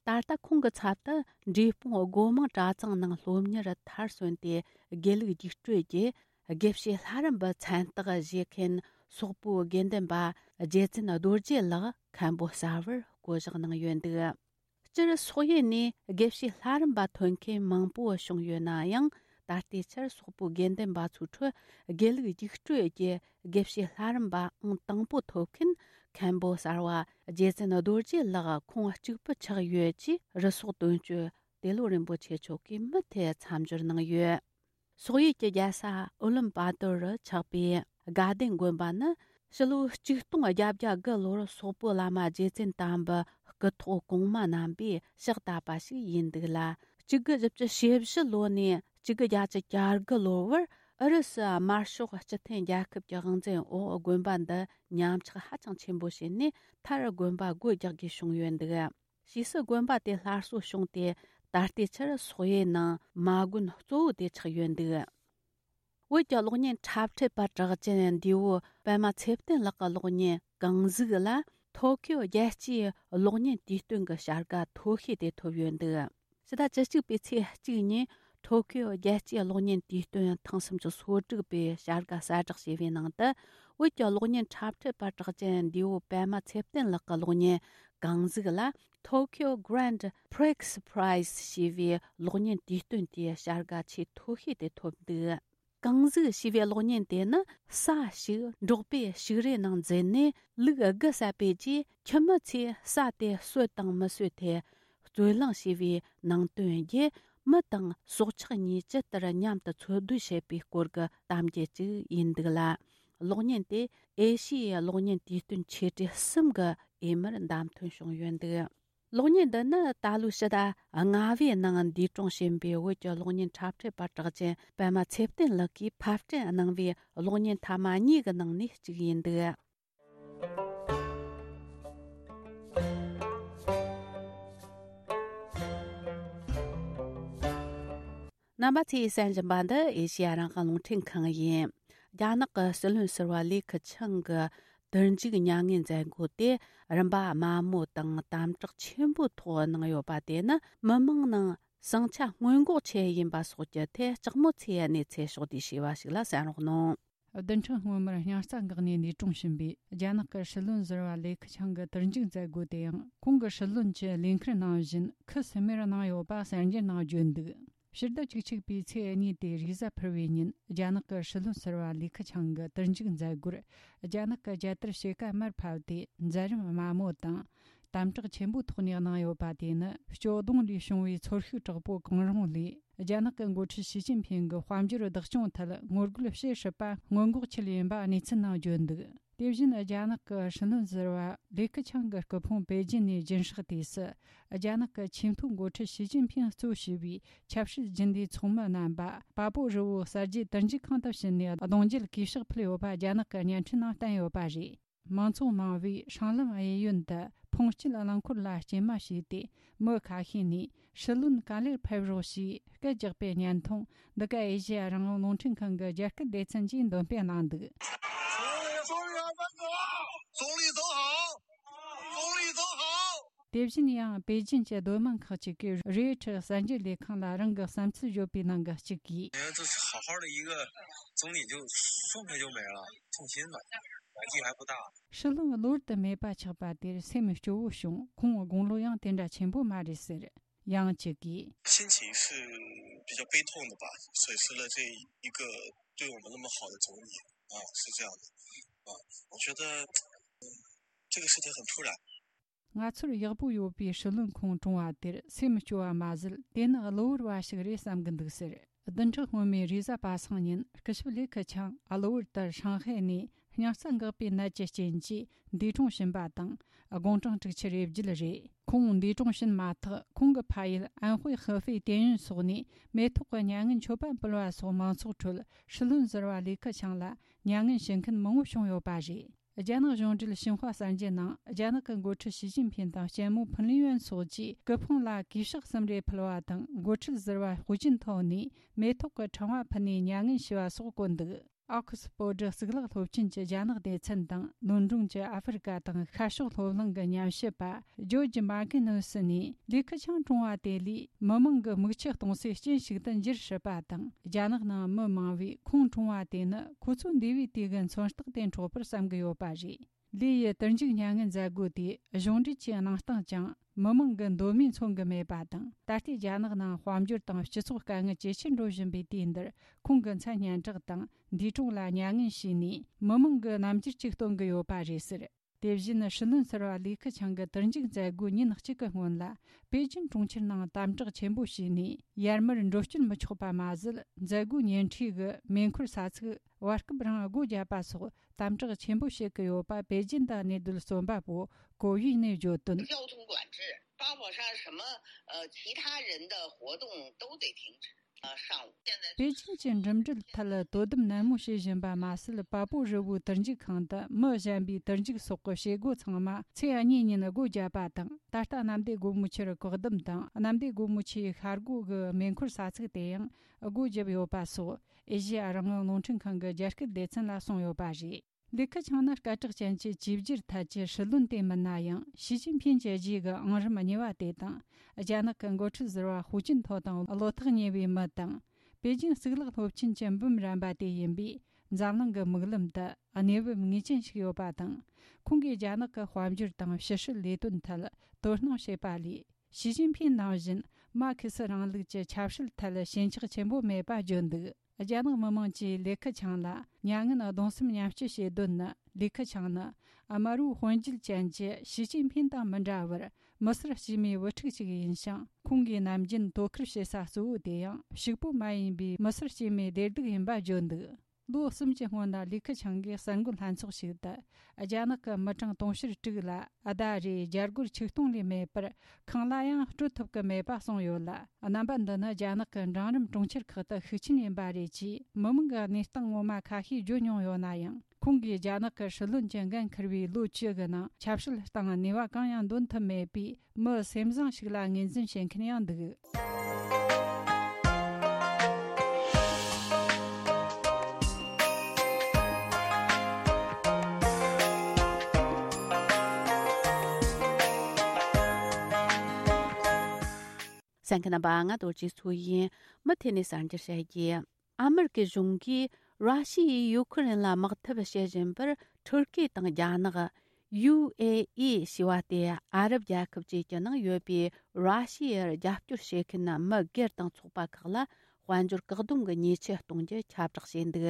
ད་ལྟ་ཁོང་གི་ཚབ་ཏུ་འབྲས་སྤུངས་སྒོ་མང་གྲྭ་ཚང་ནང་སློབ་གཉེར་མཐར་སོན་ཏེ། དགེ་ལུགས་རྒྱུགས་སྤྲོད་ཀྱི་དགེ་བཤེས་ལྷ་རམས་པའི་མཚན་རྟགས་བཞེས་མཁན་སོག་པོའི་དགེ་འདུན་པ་རྗེ་བཙུན་རྡོ་རྗེ་ལགས་མཁན་པོ་གསར་པར་བསྐོ་བཞག་གནང་ཡོད་འདུག་སྤྱིར་སོག་ཡུལ་ནས་དགེ་བཤེས་ལྷ་རམས་པ་ཐོན་མཁན་མང་པོ་བྱུང་ཡོད་ན་ཡང་། ད་ལྟའི་ཆར་སོག་པོའི་དགེ་འདུན་པ་ཚོའི་ཁྲོད་དགེ་ལུགས་རྒྱུགས་སྤྲོད་ཀྱི་དགེ་བཤེས་ལྷ་རམས་པ་ཨང་དང་པོ་ཐོབ་མཁན་མཁན་པོ་གསར་པ་རྗེ་བཙུན་རྡོ་རྗེ་ལགས་ཁོང་གཅིག་པུ་ཆགས་ཡོད་ཅེས་རུ་ཟོག་དོན་གཅོད་ཏེ་ལོ་རིན་པོ་ཆེ་མཆོག་གིས་མུ་མཐུད་མཚམས་སྦྱོར་གནང་ཡོད། སོག་ཡུལ་གྱི་རྒྱལ་ས་ཨུ་ལུན་པ་ཏོར་རུ་ཆགས་པའི་དགའ་ལྡན་དགོན་པ་ནི་ཕྱི་ལོ་ཆིག་སྟོང་བརྒྱད་བརྒྱ་དགུ་ལོར་སོག་པོའི་བླ་མ་རྗེ་བཙུན་དམ་པའི་ སྐུ་ཐོག་གོང་མ་རྣམ་པས་ཕྱག་བཏབ་པ་ཞིག་ཡིན་འདུག་ལ། གཅིག་དགུ་བཞི་བཅུ་ཞེ་བཞི་ལོ་ནས་གཅིག་དགུ་བརྒྱད་ཅུ་གྱ་དགུ་ལོ་བར་ཨུ་རུ་སུ་དམར་ཤོག་སྤྱི་མཐུན་རྒྱལ་ཁབ་ཀྱི་དབང་འཛིན་འོག་དགོན་པ་འདི་ཉམས་ཆག་ཧ་ཅང་ཆེན་པོ་བྱས་ནས། མཐར་དགོན་པ་སྒོ་རྒྱག་དགོས་བྱུང་ཡོད་འདུག། ཕྱིས་སུ་དགོན་པ་དེ་སླར་གསོ་བྱུང་སྟེ། ད་ལྟའི་ཆར་སོག་ཡའི་ནང་མ་དགོན་གཙོ་བོ་དེ་ཆགས་ཡོད་འདུག། བོད་ཀྱི་གློག་བརྙན་འཁྲབ་ཁྲིད་པ་གྲགས་ཅན་འདས་པོ་པད་མ་ཚེ་བརྟན་ལགས་ཀྱི་གློག་བརྙན་གང་གཟུགས་ལ། ཐོ་ཀིའོ་རྒྱལ་སྤྱིའི་གློག་བརྙན་དུས་སྟོན་གྱི་བྱ་དགའ་མཐོ་ཤོས་དེ་ཐོབ་ཡོད་འདུག། ཕྱི་ཟླ་བཅུ་གཅིག་པའི་ཚེས་གཅིག་ཉིན་ཐོ་ཀིའོ་རྒྱལ་སྤྱིའི་གློག་བརྙན་དུས་སྟོན་ཐེངས་སུམ་ཅུ་སོ་དྲུག་པའི་བྱ་དགའ་གསལ་བསྒྲགས་བྱས་པའི་ནང་དུ། བོད་ཀྱི་གློག་བརྙན་འཁྲབ་ཁྲིད་པ་གྲགས་ཅན་འདས་པོ་པད་མ་ཚེ་བརྟན་ལགས་ཀྱི་གློག་བརྙན་གང་གཟུགས་ལ། Tokyo Grand Prix Prize ཞེས་པའི་གློག་བརྙན་དུས་སྟོན་དེའི་བྱ་དགའ་ཆེས་མཐོ་ཤོས་དེ་ཐོབ་འདུག། གང་གཟུགས་ཞེས་པའི་གློག་བརྙན་དེ་ནི། ས་ཞིག་འབྲོག་པའི་ཕྱུགས་རའི་ནང་འཛུལ་ནས། ལུག་དགུ་བསད་པའི་རྗེས། ཁྱིམ་མི་ཚོས་ས་དེ་གསོད་དང་མི་གསོད་ཐད་རྩོད་གླེང་བྱས་པའི་ནང་དོན་བརྒྱུད། མི་དང་སྲོག་ཆགས་གཉིས་ཇི་ལྟར་མཉམ་དུ་འཚོ་སྡོད་བྱེད་པའི་སྐོར་གྱི་གཏམ་རྒྱུད་ཅིག་ཡིན་འདུག་ལ། གློག་བརྙན་དེ་ཨེ་ཤི་ཡའི་གློག་བརྙན་དུས་སྟོན་ཆེ་གྲས་གསུམ་གྱི་འོས་མིར་བདམས་ཐོན་བྱུང་ཡོད་འདུག། གློག་བརྙན་འདི་ནི་ད་ལོའི་ཕྱི་ཟླ་ལྔ་པའི་ནང་འདས་གྲོངས་ཕྱིན་པའི་བོད་ཀྱི་གློག་བརྙན་འཁྲབ་ཁྲིད་པ་གྲགས་ཅན་པད་མ་ཚེ་བརྟན་ལགས་ཀྱིས་ཕབ་སྐྲུན་གནང་བའི་གློག་བརྙན་མཐའ་མ་གཉིས་ཀྱི་ནང་ནས་གཅིག་ཡིན་འདུག། རྣམ་པ་ཚོས་གསན་བཞིན་པ་འདི་ཨེ་ཤེ་ཡ་རང་དབང་རླུང་འཕྲིན་ཁང་ཡིན། རྒྱ་ནག་གི་སྲིད་བློན་ཟུར་པ་ལི་ཁི་ཆང་གི་དུར་འཇུག་མྱ་ངན་མཛད་སྒོ་དེ་རིམ་པ་དམའ་མོ་དང་དམ་དྲག་ཆེན་པོའི་ཐོག་གནང་ཡོད་པ་དེ་ནི། མི་མང་ནང་ཟིང་ཆ་སྔོན་འགོག་ཆེད་ཡིན་པ་སོགས་ཀྱི་ཐད་ལྕགས་མོ་ཚོས་གནས་ཚུལ་ཕྱོགས་བསྡུས་བྱས་པ་ཞིག་ལ་གསན་རོགས་གནང་། བདུན་ཕྲག་སྔོན་མར་སྙིང་རྩ་འགག་ནས་ནད་གྲོངས་ཕྱིན་པའི་རྒྱ་ནག་གི་སྲིད་བློན་ཟུར་པ་ལི་ཁི་ཆང་གི་དུར་འཇུག་མཛད་སྒོ་དེ་ཡང་། ཁོང་གི་སྲིད་བློན་གྱི་ལས་འཁུར་ནང་བཞིན་ཁུ་སིམ་མེར་གནང་ཡོད་པ་གསར་འགྱུར་ནང་བརྗོད་འདུག། ཕྱི་ཟླ་བཅུ་གཅིག་པའི་ཚེས་གཉིས་ཏེ་རེས་གཟའ་ཕུར་བུའི་ཉིན། རྒྱ་ནག་གི་སྲིད་བློན་ཟུར་པ་ལི་ཁི་ཆང་གི་དུར་འཇུག་མཛད་སྒོར། རྒྱ་ནག་གི་རྒྱལ་དར་ཕྱེད་ཀ་མར་ཕབ་སྟེ། མཛད་རིམ་དམའ་མོ་དང་། དམ་དྲག་ཆེན་པོའི་ཐོག་ནས་གནང་ཡོད་པ་དེ་ནི། སྐྱོ་གདུང་ལས་བྱུང་བའི་ཚོར་ཤུགས་དྲག་པོ་གང་རུང་ལས། རྒྱ་ནག་གི་འགོ་ཁྲིད་ཞི་ཅིན་ཕིང་གི་དཔལ་འབྱོར་བདག་སྐྱོང་ཐད་ངོ་རྒོལ་བྱེད་སྲིད་པ་སྔོན་འགོག་ཆེད་ཡིན་པ་གནས་ཚུལ་ནང་བརྗོད་འདུག། དེ་བཞིན་རྒྱ་ནག་གི་སྲིད་བློན་ཟུར་པ་ལི་ཁི་ཆང་གི་སྐུ་ཕུང་པེ་ཅིན་ནས་རྒྱུན་བསྲེགས་དུས་སུ། རྒྱ་ནག་གི་ཆེས་མཐོའི་འགོ་ཁྲིད་ཞི་ཅིན་ཕིང་གཙོ་བྱས་པའི་ཆབ་སྲིད་རྒྱུན་ལས་ཚོགས་མི་རྣམ་པ་དཔའ་བོ་རི་བོ་གསར་བརྗེའི་དུར་འཇུག་ཁང་དུ་ཕྱིན་ནས་གདུང་རྒྱུད་གུས་ཕྱག་ཕུལ་ཡོད་པ་རྒྱ་ནག་གི་བརྙན་འཕྲིན་ནང་བསྟན་ཡོད་པ་རེད། མང་ཚོགས་མང་བས་སྲང་ལམ་གཡས་གཡོན་དུ་ཕུང་སྐྱིལ་རླངས་འཁོར་ལ་སྐྱེལ་མ་བྱས་ཏེ། མི་ཁ་ཤས་ནས་སྲིད་བློན་ག་ལེར་ཕེབས་རོགས་ཞེས་སྐད་རྒྱག་པའི་བརྙན་ཐུང་འདི་ག་ཨེ་ཤེ་ཡ་རང་དབང་རླུང་འཕྲིན་ཁང་གི་རྒྱ་སྐད་སྡེ་ཚན་གྱིས་འདོན་སྤེལ་གནང་འདུག། 这是好好的一个总理就送他就没了，痛心吧，年纪还不大。 སྲིད་བློན་གློ་བུར་དུ་མེད་པ་ཆགས་པ་དེར་སེམས་སྐྱོ་བོ་བྱུང་། ཁོང་དགུང་ལོ་ཡང་དེ་འདྲ་ཆེན་པོ་མ་རེད་ཟེར། ཡང་གཅིག་གིས། 心情是比较悲痛的吧，损失了这一个对我们那么好的总理啊，是这样的啊，我觉得，嗯，这个事情很突然。 ང་ཚོར་ཡག་པོ་ཡོད་པའི་སྲིད་བློན་ཁོང་གྲོངས་པ་དེར་སེམས་སྐྱོ་བ་མ་ཟད། དེ་ནི་གློ་བུར་བ་ཞིག་རེད་བསམ་གི་འདུག་ཟེར། བདུན་ཕྲག་སྔོན་མའི་རེས་གཟའ་པ་སངས་ཉིན། སྐུ་ཞབས་ལི་ཁི་ཆང་གློ་བུར་དུ་ཧྲང་ཧའེ་ནས་སྙིང་རྩ་འགག་པའི་ནད་ཀྱི་རྐྱེན་གྱིས་འདས་གྲོངས་ཕྱིན་པ་དང་། དགུང་གྲངས་དྲུག་ཅུ་རེ་བརྒྱད་རེད། ཁོང་འདས་གྲོངས་ཕྱིན་མ་ཐག་ཁོང་གི་ཕ་ཡུལ་ཨན་ཧུའེ་ཧི་ཧྥེ་ཏེན་ཡོན་སོགས་ནས་མེ་ཏོག་གི་མྱ་ངན་མཆོད་པ་འབུལ་བ་སོགས་མང་ཚོགས་ཁྲོད་སྲིད་བློན་ཟུར་པ་ལི་ཁི་ཆང་ལ་མྱ་ངན་ཞུ་མཁན་མང་བོ་བྱུང་ཡོད་པ་རེད། རྒྱ་ནག་གཞུང་འབྲེལ་ཤིན་ཧྭ་གསར་འགྱུར་ནང་། རྒྱ་ནག་གི་འགོ་ཁྲིད་ཞི་ཅིན་ཕིང་དང་གཅེན་མོ་ཕུན་ལི་ཡོན་སོགས་ཀྱིས་སྐུ་ཕུང་ལ་གུས་ཕྱག་གསུམ་རེ་ཕུལ་བ་དང་། འགོ་ཁྲིད་ཟུར་པ་ཧུའུ་ཅིན་ཐའོ་ནས་མེ་ཏོག་གི་ཕྲེང་བ་ཕུལ་ནས་མྱ་ངན་ཞུས་པ་སོགས་བཀོད་འདུག། ཨོག་སི་ཕོར་ཌི་གཙུག་ལག་སློབ་ཆེན་གྱི་རྒྱ་ནག་སྡེ་ཚན་དང་། ལོན་ཀྲུང་གི་ཨ་ཧྥེ་རི་ཀ་དང་ཤར་ཕྱོགས་སློབ་གླིང་གི་ཉམས་ཞིབ་པ་ཇོར་ཇི་མར་ཀི་ནོ་སི་ནས། ལི་ཁི་ཆང་གྲོངས་པ་དེ་ལས་མི་མང་གི་མིག་ཆུ་གཏོང་སའི་རྐྱེན་ཞིག་ཏུ་འགྱུར་སྲིད་པ་དང་། རྒྱ་ནག་ནང་མི་མང་བས་ཁོང་གྲོངས་པ་དེ་ནི་ཁོ་ཚོ་འདས་པའི་དུས་ཀྱི་མཚོན་རྟགས་དེ་འཕྲོག་པར་བསམ་གྱི་ཡོད་པ་རེད། ལི་ཡི་དུར་འཇུག་མྱ་ངན་མཛད་སྒོ་དེ་གཞུང་འབྲེལ་གྱི་གནང་སྟངས་ཀྱང་མི་མང་གི་འདོད་མོས་མཚོན་གྱི་མེད་པ་དང་། ད་ལྟའི་རྒྱ་ནག་ནང་དཔལ་འབྱོར་དང་སྤྱི་ཚོགས་དཀའ་ངལ་ཇེ་ཆེར་འགྲོ་བཞིན་པའི་དུས་འདིར། ཁོང་གི་མཚན་སྙན་གྲགས་དང་འདས་གྲོངས་ལ་མྱ་ངན་ཞུས་ནས། མི་མང་གི་རྣམ་འགྱུར་ཅིག་སྟོན་གྱི་ཡོད་པ་རེད་ཟེར། དེ་བཞིན་སྲིད་བློན་ཟུར་པ་ལི་ཁི་ཆང་གི་དུར་འཇུག་མཛད་སྒོའི་ཉིན་གཅིག་གི་སྔོན་ལ། པེ་ཅིན་གྲོང་ཁྱེར་ནང་དམ་དྲག་ཆེན་པོ་བྱས་ནས། ཡར་མར་འགྲོ་སྐྱོད་མི་ཆོག་པ་མ་ཟད། མཛད་སྒོའི་ཉེ་འཁྲིས་ཀྱི་མེ་འཁོར་ས་ཚིགས་བར་སྐབས་རིང་སྒོ་བརྒྱབ་པ་སོགས། དམ་དྲག་ཆེན་པོ་བྱེད་ཀྱི་ཡོད་པ། པེ་ཅིན་དང་གནས་སྡོད་རྩོམ་པ་པོ་གོ་ཡུས་ནས་བརྗོད་དོན། 交通管制，包括上什么呃其他人的活动都得停止。呃，上午现在 པེ་ཅིན་གྱི་འགྲིམ་འགྲུལ་ཐད་དོ་དམ་ནན་མོ་བྱེད་བཞིན་པ་མ་ཟད། བལ་པོ་རི་བོའི་དུར་འཇུག་ཁང་དུ་མི་གཞན་པའི་དུར་འཇུག་སོགས་ཀྱི་བྱེད་སྒོ་ཚང་མ་ཚེས་གཉིས་ཉིན་སྒོ་བརྒྱབ་པ་དང་། ད་ལྟ་གནམ་བདེ་སྒོ་མོ་ཆེར་བཀག་སྡོམ་དང་། གནམ་བདེ་སྒོ་མོ་ཆེའི་ཤར་སྒོ་གི་མེ་འཁོར་ས་ཚིགས་དེ་ཡང་སྒོ་བརྒྱབ་ཡོད་པ་སོགས། ཨེ་ཤེ་ཡ་རང་དབང་རླུང་འཕྲིན་ཁང་གི་རྒྱ་སྐད་སྡེ་ཚན་ལ་གསུངས་ཡོད་པ་རེད། ལི་ཁི་ཆང་ནི་སྐད་གྲགས་ཅན་གྱི་ཆོས་བརྒྱུད་ཐད་ཀྱི་སྲིད་བློན་དེ་མིན་ན་ཡང་། ཞི་ཅིན་ཕིན་གྱི་རྗེས་ཀྱི་ཨང་རིམ་གཉིས་པ་དེ་དང་། རྒྱ་ནག་གི་འགོ་ཁྲིད་ཟུར་པ་ཧུའུ་ཅིན་ཐའོ་དང་བློ་ཐག་ཉེ་བའི་མི་དང་། པེ་ཅིན་གཙུག་ལག་སློབ་ཆེན་གྱི་འབུམ་རམས་པ་དེ་ཡིན་པས། འཛམ་གླིང་གི་མིག་ལམ་དུ་གནས་བབ་ངེས་ཅན་ཞིག་ཡོད་པ་དང་། ཁོང་གིས་རྒྱ་ནག་གི་དཔལ་འབྱོར་དང་ཕྱི་སྲིད་ལས་དོན་ཐད་དོ་སྣང་བྱེད་པ་ལས། ཞི་ཅིན་ཕིན་ནང་བཞིན་མར་ཁེ་སི་རིང་ལུགས་ཀྱི་ཆབ་སྲིད་ཐད་ཞེན་ཆགས་ཆེན་པོ་མེད་པ་བརྗོད་འདུག་རྒྱ་ནག་མི་དམངས་ཀྱིས་ལི་ཁི་ཆང་ལ་མྱ་ངན་གདུང་སེམས་མཉམ་སྐྱེད་བྱེད་དོན་ནི། ལི་ཁི་ཆང་ནི་དམར་པོའི་དཔོན་བརྒྱུད་ཅན་གྱི་ཞི་ཅིན་ཕིན་དང་མི་འདྲ་བར། མི་སེར་དཀྱུས་མའི་བུ་ཕྲུག་ཅིག་ཡིན་ཞིང་། ཁོང་གིས་ནམ་རྒྱུན་དོ་ཁུར་བྱེད་ས་གཙོ་བོ་དེ་ཡང་ཕྱུག་པོ་མ་ཡིན་པའི་མི་སེར་དཀྱུས་མའི་བདེ་སྡུག་ཡིན་པ་བརྗོད་འདུག་ལོ་གསུམ་གྱི་སྔོན་ལ་ལི་ཁི་ཆང་གིས་གསར་འགོད་ལྷན་ཚོགས་ཤིག་ཏུ། རྒྱ་ནག་གི་མི་གྲངས་དུང་ཕྱུར་དྲུག་ལ་ཟླ་རེའི་རྒྱ་སྒོར་ཆིག་སྟོང་ལས་མེད་པར། ཁང་གླ་ཡང་སྤྲོད་ཐུབ་ཀྱི་མེད་པ་གསུངས་ཡོད་ལ། རྣམ་པ་འདི་ནི་རྒྱ་ནག་གི་འབྲིང་རིམ་གྲོང་ཁྱེར་ཁག་ཏུ་ཤུགས་ཆེན་ཡིན་པ་རེད་ཅེས་མི་མང་གི་གནས་སྟངས་ངོ་མ་ཁ་ཤས་བརྗོད་མྱོང་ཡོད་ན་ཡང་། ཁོང་གིས་རྒྱ་ནག་གི་སྲིད་བློན་གྱི་འགན་འཁུར་བའི་ལོ་བཅུ་གི་ནང་ཆབ་སྲིད་སྟེང་ནུས་པ་གང་ཡང་འདོན་ཐུབ་མེད་པས། མི་སེམས་བཟང་ཞིག་ལ་ངོས་འཛིན་བྱེད་མཁན་ཡང་འདུག་གསན་མཁན་རྣམ་པ། ང་རྡོ་རྗེ་མཚོ་ཡིན། མུ་མཐུད་ནས་གསར་འགྱུར་བཤད་རྒྱུ། ཨ་མེ་རི་ཀའི་གཞུང་གིས་ར་ཤི་ཡས་ཡུ་ཁུ་རེན་ལ་དམག་འཐབ་བྱེད་བཞིན་པར། ཊུར་ཀི་དང་རྒྱ་ནག་ཡུ་ཨེ་ཨི་ཞེས་པ་སྟེ་ཨ་རབ་རྒྱལ་ཁབ་བཅས་ཀྱི་ནང་ཡོད་པའི་ར་ཤི་ཡར་རྒྱབ་སྐྱོར་བྱེད་མཁན་མི་སྒེར་དང་ཚོགས་པ་ཁག་ལ་དཔལ་འབྱོར་བཀག་སྡོམ་གྱི་ཉེས་ཆད་གཏོང་རྒྱུ་ཁྱབ་བསྒྲགས་བྱས་འདུག་